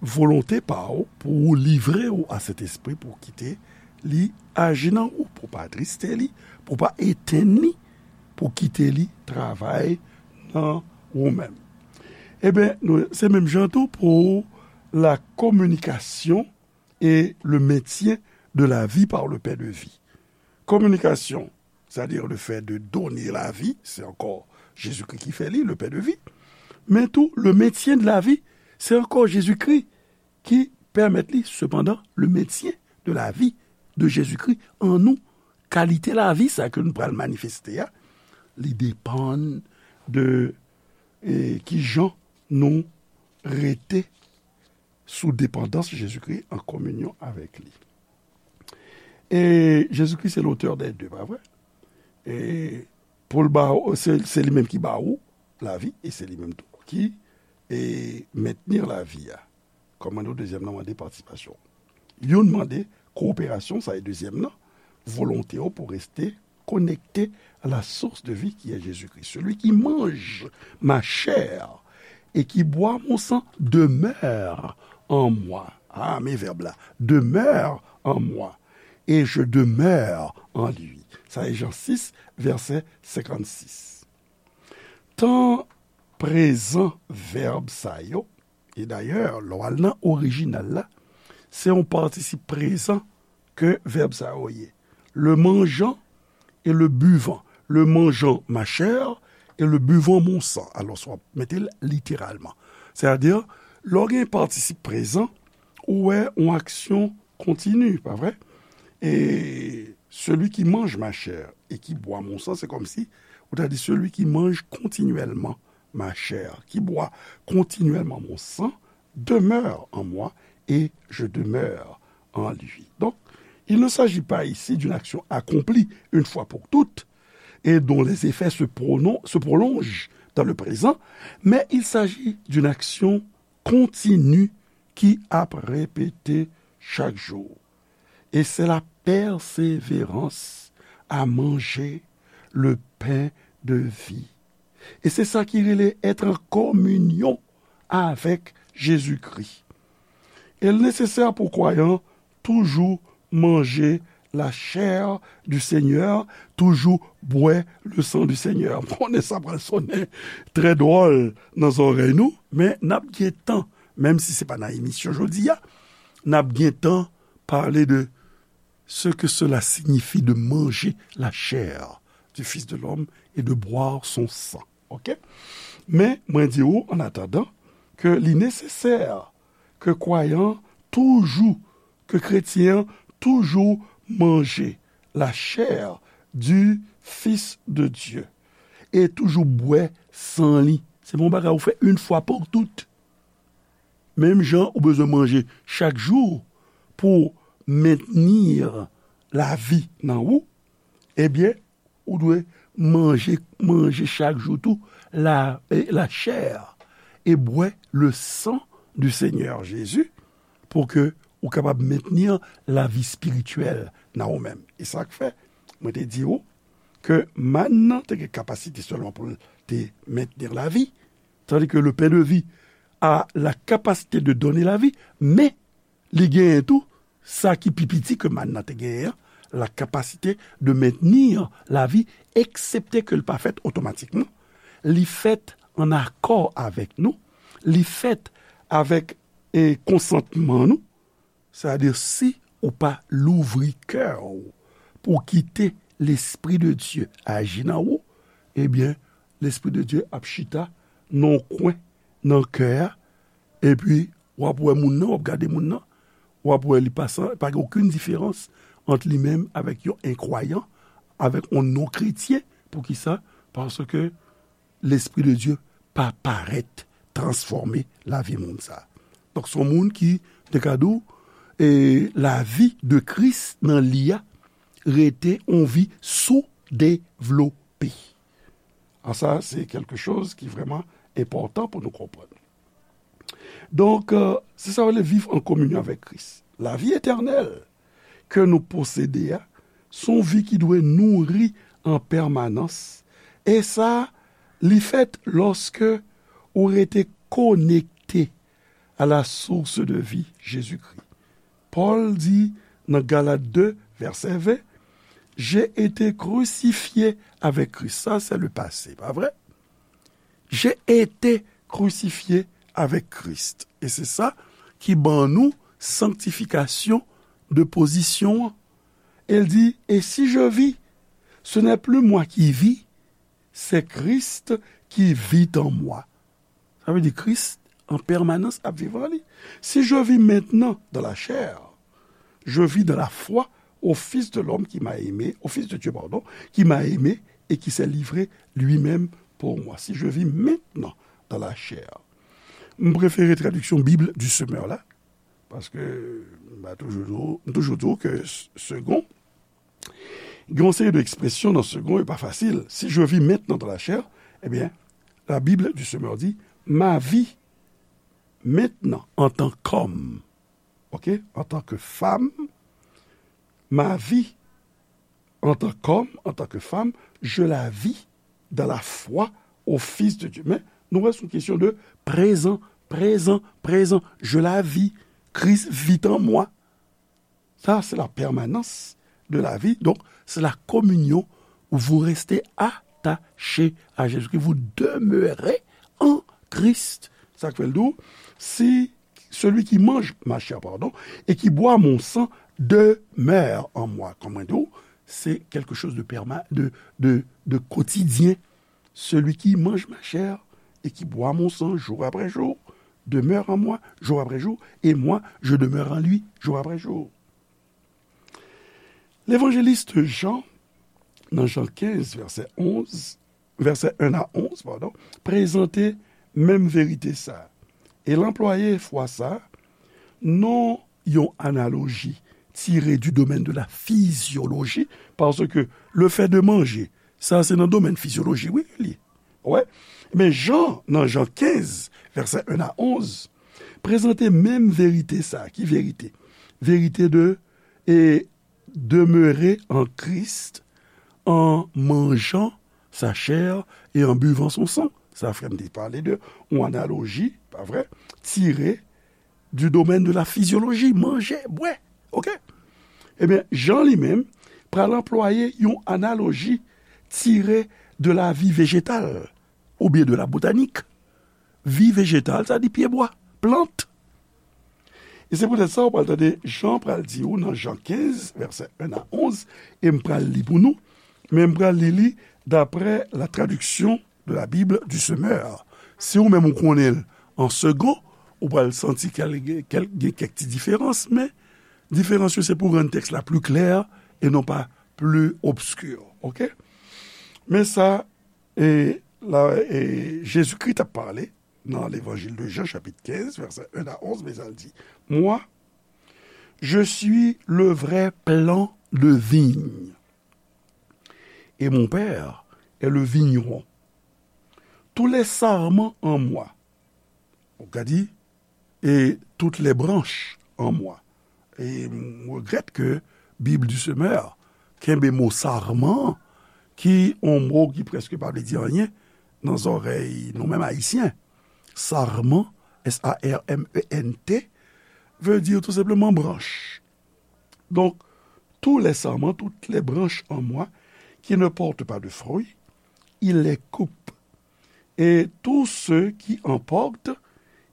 volonte pa w pou w livre w a Sentespri, pou w kite li aji nan ou, pou w pa atriste li, pou w pa etenn li, pou w kite li travay nan ou menm. Ebyen, nou, se menm jan tou pour la communication et le maintien de la vie par le pain de vie. Communication, c'est-à-dire le fait de donner la vie, se ankò Jezikri ki fè li, le pain de vie. Men tou, le maintien de la vie, se ankò Jezikri ki pèmèt li, sepandan, le maintien de la vie de Jésus-Christ en nous. Kalite lavi sa ke nou pral manifeste a, li depann de, e, kijan nou rete sou depandans Jezikri, an kominyon avèk li. E Jezikri se l'auteur des deux, pa vre? E pou l ba ou, se, se li menm ki ba ou lavi, e se li menm tou ki, e, mentni lavi a. Kòm mwen di w, dezyèm nan mande patisipasyon. Youn mande kowoperasyon, sa e dezyèm nan, volonte w pou reste connecté à la source de vie qui est Jésus-Christ. Celui qui mange ma chair et qui boit mon sang demeure en moi. Ah, men vèb la. Demeure en moi. Et je demeure en lui. Sa e Jan sis, vèsè senkannsis. Tan prezan vèb sa yo, e dayè, lè w al nan orijinal la, se yon patisip prezan ke vèb sa yo ye. Le mangeant et le buvant. Le mangeant ma chair et le buvant mon sang. Alò, w ap mete l literalman. Sètadi, lè w gen patisip prezan, ou wè yon aksyon kontini, pa vre? Et celui qui mange ma chair et qui boit mon sang, c'est comme si ou ta di celui qui mange continuellement ma chair, qui boit continuellement mon sang, demeure en moi et je demeure en lui. Donc, il ne s'agit pas ici d'une action accomplie une fois pour toutes et dont les effets se, pronon- se prolongent dans le présent, mais il s'agit d'une action continue ki ap repete chak jou. Et c'est la persévérance à manger le pain de vie. E se sa ki rele être en communion avec Jésus-Christ. E l nesesè pou kwayan toujou manje la chair du Seigneur, toujou bwè le sang du Seigneur. M konnen sa pral sonnen trè dwòl nan zòrèy nou, men n ap gen tan, menm si se pa nan emisyon jodi a, n ap gen tan pale de ce que cela signifie de manger la chair du Fils de l'homme et de boire son sang. Ok? Men, mwen di ou, an atandan, ke li nesesè ke kwayan toujou, ke kretyen an toujou manje la chair du Fils de Dieu e toujou bwè san li. Se pa yon bagay ou fè yon fwa pou tout. Menm jan ou bezwen manje chak jou pou mentni lavi nan ou, ebyen, ou dwe manje, manje chak jou tou la, e, la chair e bwè le sang du Seigneur Jésus pou ke ou kapab mentni lavi espirityèl nan ou menm. E sa k fè, mwen te di ou ke mann nan te gen kapasite sèlman pou l te mentni lavi, tandis que le pain de vie a la capacité de donner la vie, men li genyen tou sa ki pi piti ke mann nan te genyen an, la capacité de maintenir la vie, eksepte ke l pa fèt otomatikman. Li fèt an akò avèk nou, li fèt avèk, e, konsantman nou, sètadi si ou pa louvri kè w pou kite Lespri de Dye aji nan ou, ebyen, Lespri de Dye ap chita nan yon kwen nan kè a, epi w ap wè moun nan, w ap gade moun nan, w ap wè li pa san, pa gen okenn diferans ant li menm avèk yon enkwayan, avèk yon non-kretyen. Poukisa? Paske Lespri de Dye pa parèt transfòme lavi moun sa a. Donk, se yon moun ki, te ka di w, e lavi de Kris nan li a rete yon vi soudevlope. A sa, se kèlke choz ki vrèman enpòtan pou nou konprann. Donk, e, se sa w rele viv an kominyon avèk Kris. Lavi etènèl ke nou posede a, se yon vi ki dwe nouri an pèmanans. E sa, li fèt lòske ou rete konekte à la source de vie, Jésus-Christ. Pòl di nan Galat de, vèsè ven, J'ai été crucifié avec Christ. Sa, se le pase, pa vre? J'ai été crucifié avec Christ. E se sa ki ban nou sanktifikasyon de pozisyon an. E l di, Et si je vis, ce n'est plus moi qui vis, c'est Christ qui vit en moi. Sa vle di Kris an pèmanans ap viv an li. Si je vis maintenant dans la chair, je vis dans la foi au Fils de l'homme qui m'a aimé, au Fils de Dieu, pardon, qui m'a aimé et qui s'est livré lui-même pour moi. Si je vis maintenant dans la chair. M prefere tradiksyon Bib du Semeur la, paske m pa toujou di w, m toujou di w ke s-, segon, Gen yon seri de ekspresyon nan segon, e pa fasil. Si je vis maintenant dans la chair, ebyen, la Bible du Semeur dit, ma vie maintenant en tant qu'homme, ok, en tant que femme, ma vie en tant qu'homme, en tant que femme, je la vis dans la foi au Fils de Dieu. Men, nou wè, se yon kesyon de prezan, prezan, prezan. Je la vis. Christ vit en moi. Ça, c'est la permanence de la vie. Donc, c'est la communion où vous restez attaché à Jésus-Christ. Vous demeurez en Christ. Sa k fè l di w, si celui qui mange ma chair, pardon, et qui boit mon sang demeure en moi. Kòm mwen di w, se quelque chose de perma-, de, de, de quotidien. Celui qui mange ma chair et qui boit mon sang jour après jour demeure en moi jour après jour, et moi, je demeure en lui jour après jour. Levanjelis Jan, nan Jan kenz, vèsè onz, vèsè en a onz, padon, prezante menm verite sa a. E l anplwaye fwa sa a, non yon analoji tire du domaine de la physiologie, parce que le fait de manger, sa se nan domèn fizyoloji, wi, li ye. Wè. Men Jan, nan Jan kenz, vèsè en a onz, prezante menm verite sa a. Ki verite? Verite de, e, demeurer en Christ en mangeant sa chair et en buvant son sang. Sa frè m te pale de yon analoji, pa vre, tire du domaine de la physiologie, manje, bwè. Ok? Ebyen, Jan li menm pral anplwaye yon analoji tire de la vie végétale oubyen de la botanik. Vi vejetal, sa di pyebwa, plant. E se poutèt sa, ou pral tande Jan pral di ou nan Jan kenz, vèsè en a onz, e m pral li pou nou, men m pral li li d'après la traduction de la Bible du Semeur. Si ou menm ou konnen l an segon, ou pral santi kèl, kèl, gen kèk ti diferans, men diferans yo se pou rann tèks la pli klè e non pa pli obski. Ok? Men sa, e, la, e, Jezikri t ap pale nan Levanjil de Jan, chapit kenz, vèsè en a onz, men sa l di, Moi, je suis le vrai plan de vigne, et mon Père est le vigneron. Tous les sarments en moi, ou ka di, et toutes les branches en moi. E m regrèt ke Bib du Semeur kenbe mo sarman, ki yon mo ki prèske pa vle di anyen nan zòrèy nou menm Ayisyen. Sarman, S A R M E N T, veut dire tout simplement branche. Donc, tous les sarments, toutes les branches en moi qui ne portent pas de fruits, il les coupe. Et tous ceux qui en portent,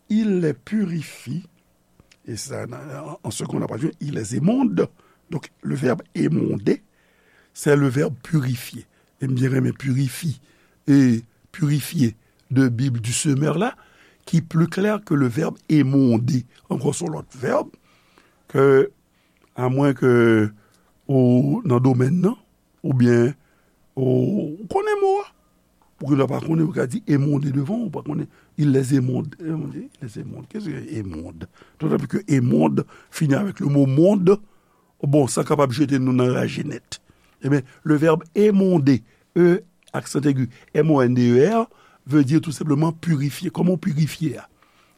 il les purifie. Et ça, en, en seconde, on a pas dit, il les émonde. Donc, le verbe émonder, c'est le verbe purifier. E m byen renmen purifi-, e purifier de Bib du Semeur la, ki pli klè ke le verbe émonder. Ankò se yon lòt vèb ke, amwen ke ou nan domèn nan, oubyen ou, ou konnen mo a. Ou gen dwa pa konnen, ou ka di émonder devan, ou pa konnen, il les émonde. Émonder, il les émonde. Qu'est-ce que émonde? D'autant plus que émonde finit avec le mot monde. Bon, sa kapab jete nou nan raje nèt. Ebyen, le verbe émonder, E, accent aigu, M O N D E R, veut dire tout simplement purifier. Kòman w pirifye a?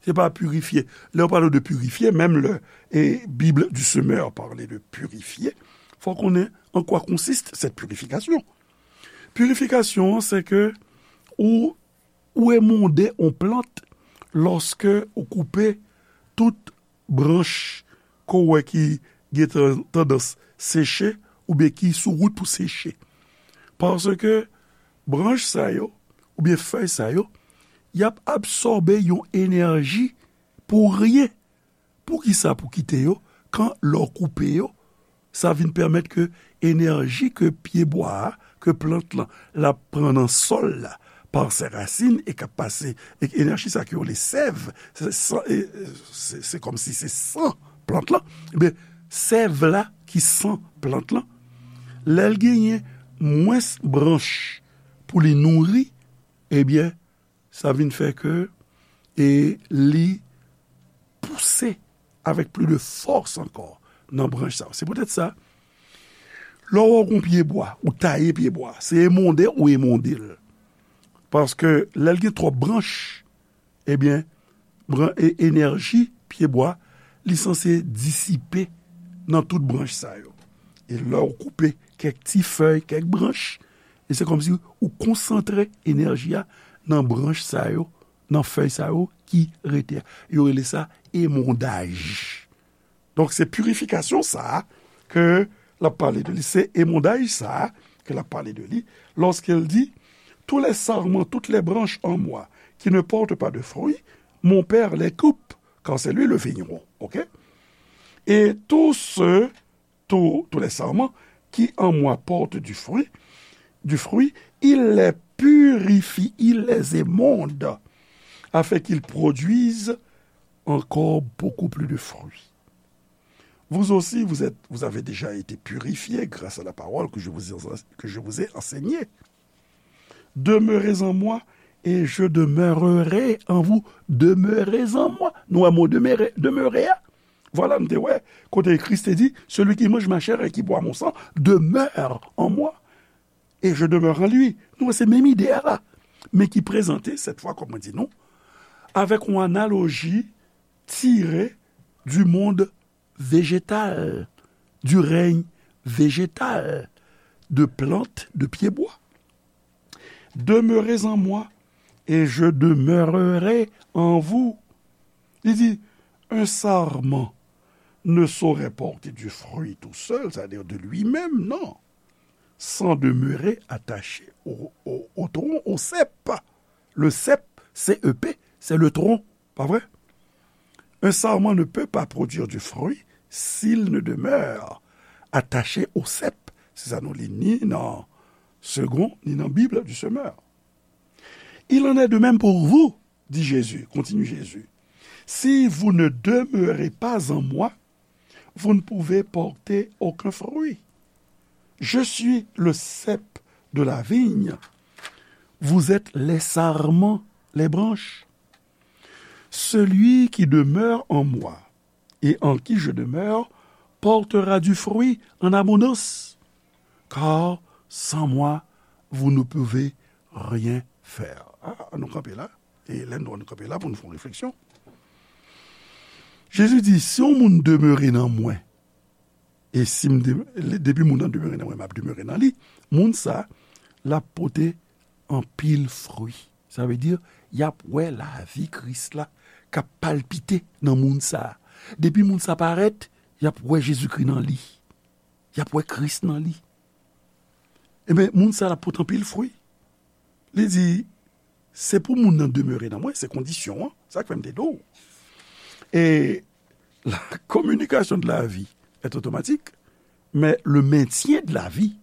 Se pa pirifye. Lè yo pale de pirifye, menm lè, e, Bible du Semeur parle de purifier, fò w konnen en quoi consiste cette purification. Purifikasyon an, se ke ou, ou émonder yon plant lòske ou koupe tout branch ke w wè ki gen tan-, tandans seche oubyen ki sou wout pou seche. Paske branch sa yo, oubyen fèy sa yo, y ap absòbe yon enèji pou ryen. Poukisa pou kite yo, kan lè w koupe yo, sa vin pèmèt ke enèji ke pyebwa a, ke plant lan, l ap pran nan sòl la, pa sè rasin, e k ap pase, e enèji sa ke yo rele sèv, se san, e, se, se kòmsi se san plant lan. Ebyen, sèv la ki san plant lan, lè l genyen mwens branch pou li nouri, ebyen, sa vin fè ke, e, li pouse avèk plis de fòs ankò nan branch sa yo. Se poutèt sa, Lè w wè yon pyebwa, ou taye pyebwa, se emonde ou emonde l. Paske lè l gen twòp branch, ebyen, bran, e, enèji pyebwa, li sanse disipe nan tout branch sa yo. E lè w koupe kèk ti fèy, kèk branch, e se kòmsi ou konsantre enèji a nan branch sa yo, nan fèy sa yo ki rete a. Yo rele sa emondaj. Donk, se pirifikasyon sa a ke l ap pale de li, se emondaj sa a ke l ap pale de li, lorsqu'il dit, tous les sarments, toutes les branches en moi qui ne portent pas de fruits, mon Père les coupe, car c'est lui le vigneron. Ok? Et tous ceux, tous, tous les sarments qui en moi portent du fruit, du fruit, il les purifie, il les émonde, afin qu'ils produisent encore beaucoup plus de fruits. Vous aussi, vous êtes, vous avez déjà été purifiés grâce à la parole que je vous ai, que je vous ai enseignée. Demeurez en moi et je demeurerai en vous. Demeurez en moi. Nou wè mo demere, demere a. Vwala, nou te wè kote Kris te di, celui qui mange ma chair et qui boit mon sang demeure en moi et je demeure en lui. Nou wè se menm ide a la, men ki prezante, cette fois, kòm mwen di nou, avèk yon analoji tire du monde végétal, du règne végétal, de plantes, de pyebwa. Demeurez en moi et je demeurerai en vous. Li di, un sarment ne saurait porter du fruit tout seul, c'est-à-dire de lui-même, non, sans demeurer attaché au, au, au tronc, au cep. Le cep, C E P, c'est le tronc, pas vrai? Un sarment ne peut pas produire du fruit s'il ne demeure attaché au cep. Se sa nou li ni nan Segond, ni nan Bib du Semeur. Il en est de même pour vous, dit Jésus, continue Jésus. Si vous ne demeurez pas en moi, vous ne pouvez porter aucun fruit. Je suis le cep de la vigne. Vous êtes les sarments, les branches. Celui qui demeure en moi et en qui je demeure portera du fruit en abondance, car sans moi, vous ne pouvez rien faire. Ah, nou kanpe la. E lè nou kanpe la pou nou fè yon refleksyon. Jezi di, si yon moun demere nan mwen, e si m de-, depi moun nan demere nan mwen, m ap demere nan li, moun sa, l ap pote anpil fwi. Sa vle di, y ap wè lavi Kris la k ap palpite nan moun sa. Depi moun sa parèt, y ap wè Jezikri nan li. Y ap wè Kris nan li. Ebyen, moun sa l ap pote anpil fwi. Li di, se pou moun nan demere nan mwen, se kondisyon an. Sa k fè m te di w. Et la communication de la vie est automatique, mais le maintien de la vie,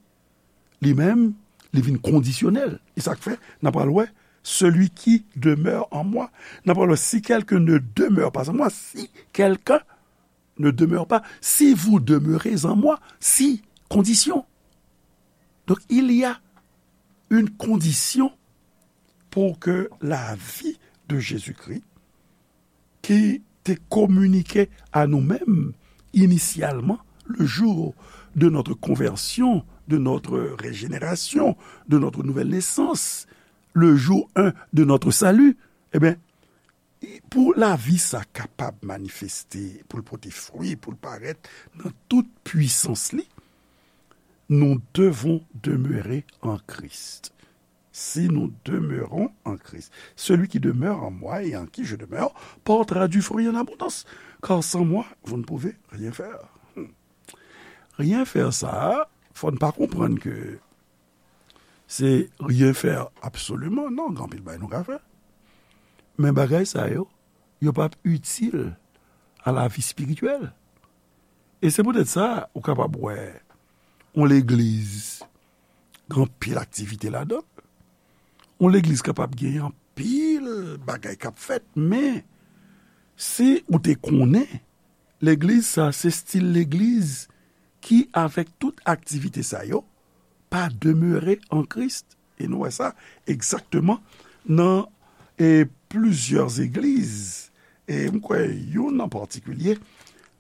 li menm, li vin kondisyonèl. E sa k fè, n ap pral wè, celui qui demeure en moi. N ap pral wè, si quelqu'un ne demeure pas en moi, si quelqu'un ne demeure pas, si vous demeurez en moi, si, condition. Donc, il y a une condition pour que la vie de Jésus-Christ, qui était communiquée à nous-mêmes initialement, le jour de notre conversion, de notre régénération, de notre nouvelle naissance, le jour un de notre salut, eh bien, pou lavi sa kapab manifeste, pou l pote fwi, pou l parèt nan tout pwisans li, nous devons demeurer en Christ. Si nous demeurons en Christ, celui qui demeure en moi et en qui je demeure portera du fruit en abondance, car sans moi, vous ne pouvez rien faire. Hmm. Rien faire sa, fò n pa konprann ke se rien faire absolument, non, gen anpil bagay nou ka fè. Men bagay sa yo, yo p ap itil a lavi espirityèl. E se poutèt sa, ou kapab wè yon legliz, gen anpil aktivite ladan l. Yon legliz kapab gen anpil bagay k ap fèt, men si ou te konnen legliz sa, se stil legliz ki, avèk tout aktivite sa yo, pa demere an Kris. E nou wè sa egzakteman nan, e, plizyè egliz. E m kwè youn an patikilye,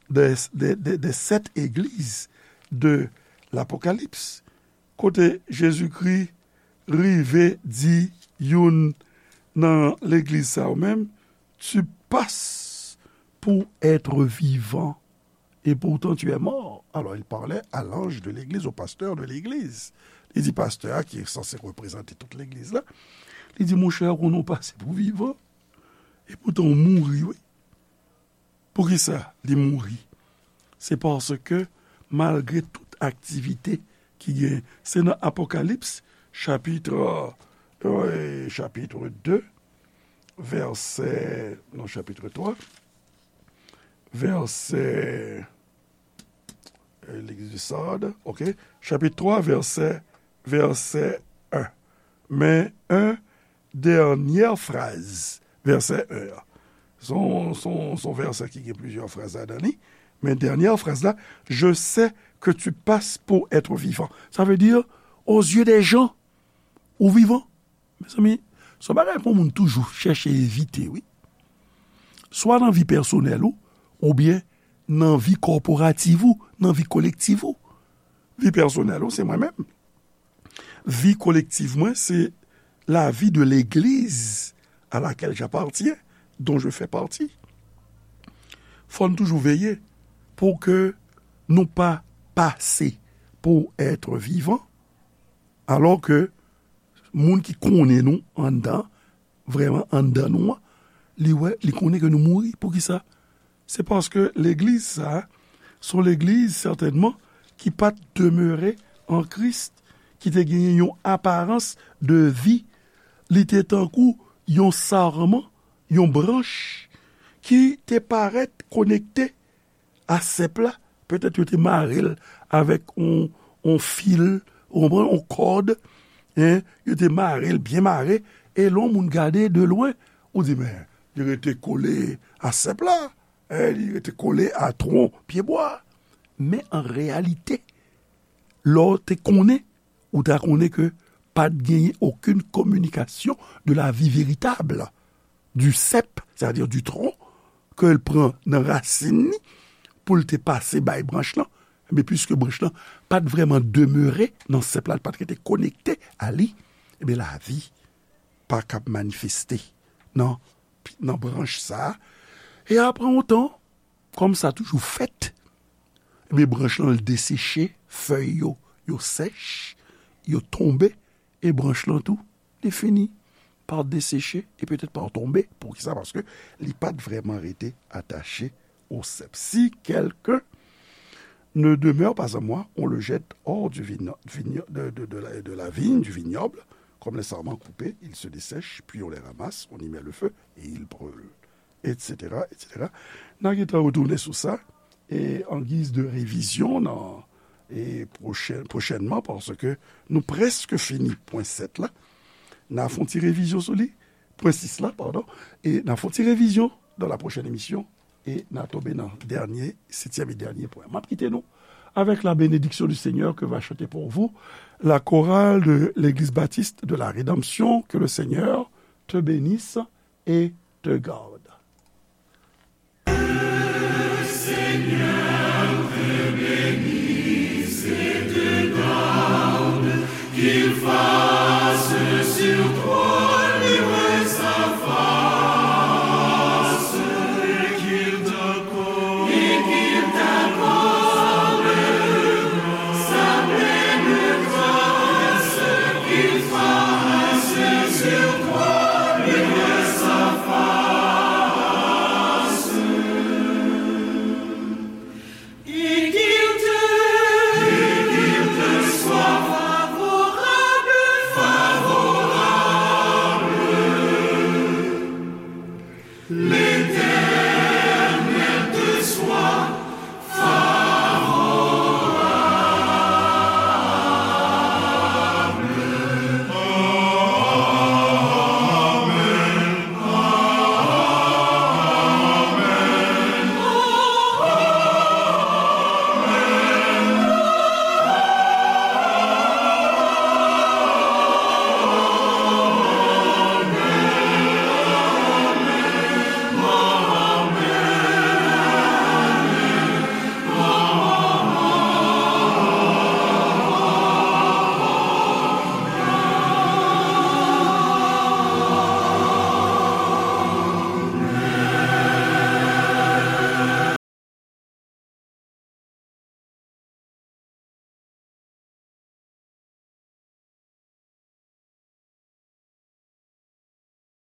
de, de, de, de sèt egliz de Lapokalips, kote Jezikri rive di youn nan legliz sa yo menm, tu passes pour être vivant, et pourtant tu es mort. Alors, il parlait à l'ange de l'église, au pasteur de l'église. Li di pastè a, ki sanse reprezante tout legliz la, li di, monchè, ou konnen w pase pou vivan, e poutan w mouri, wi. Poukisa li mouri? Se paske, malgre tout aktivite ki gen, se nan Apokalips, chapit, euh, chapit de, vèsè, non, chapit twa, vèsè, euh, legliz de Sard, ok, chapit twa, vèsè, vèsè en. Men, en dènyè fraz, vèsè en an. Se yon, se yon, se yon vèsè ki gen plizyè fraz ladan li, men dènyè fraz la, je sais que tu passes pour être vivant. Sa vle di, aux yeux des gens, ou vivan. Mezanmi, se yon bagay pou moun toujou chèche evite, wi. Swa nan vi pèsonèl ou, oubyen nan vi kòporativ ou, nan vi kolektiv ou. Vi pèsonèl ou, se mwen menm. Vi kolektiv mwen, se la vie de l'église à laquelle j'appartiens, dont je fais partie. Fò n toujou veye pou ke nou pa pase pour être vivant, alò ke moun ki konnen nou anndan, vrèman anndan nou an, li wè, li konnen ke nou mouri. Poukisa? Se paske legliz sa a, se yon legliz sètènman ki pa t demere an Kris, ki te genyen yon aparans de vi. Li te tankou yon sarman, yon branch ki te parèt konekte a sèp la. Petèt yo te mare l avèk yon, yon fil, ou konprann, yon kòd, en, yo te mare l byen mare, e lè yon moun gade de lwen, ou di, men, li rete kole a sèp la, en, li rete kole a twon pyebwa. Men an reyalite, lè w te konnen, ou ta konnen ke pa t genyen okenn kominikasyon de la vie véritable du cep, c'est-à-dire du tronc, ke l pran nan rasin li, pou l te pase bay branch lan, men piske branch lan pa t vrèman demere nan sèp la, l pa t rete konekte a li, ebyen, lavi pa kab manifeste nan, nan branch sa a. E apre yon tan, kòm sa toujou fèt, ebyen, branch lan, l deseche, fèy yo, yo sèch, yo tonbe, e branch lan tou, li fini pa deseche e petèt pa tonbe. Poukisa? Paske li pa t vrèman rete atache au cep. Si quelqu'un ne demeure pas en moi, on le jette hors du vigno-, vigno-, de, de, de la, de la vigne, du vignoble, comme les sarments coupés, ils se dessèchent, puis on les ramasse, on y met le feu et ils brûlent, et cetera, et cetera. N a gentan retounen sou sa, e an giz de revizyon nan, e pwochèn, pwochènman, paske nou prèske fini pwen sèt la. N a fè yon ti revizyon sou li, pwen sis la, padon, e n a fè yon ti revizyon dans la prochaine émission, e n a tonbe nan dènye, setyèm e dènye pwen. M ap kite nou avec la bénédiction du Seigneur que va chanter pour vous la chorale de l'Église Baptiste de la Rédemption. Que le Seigneur te bénisse et te garde.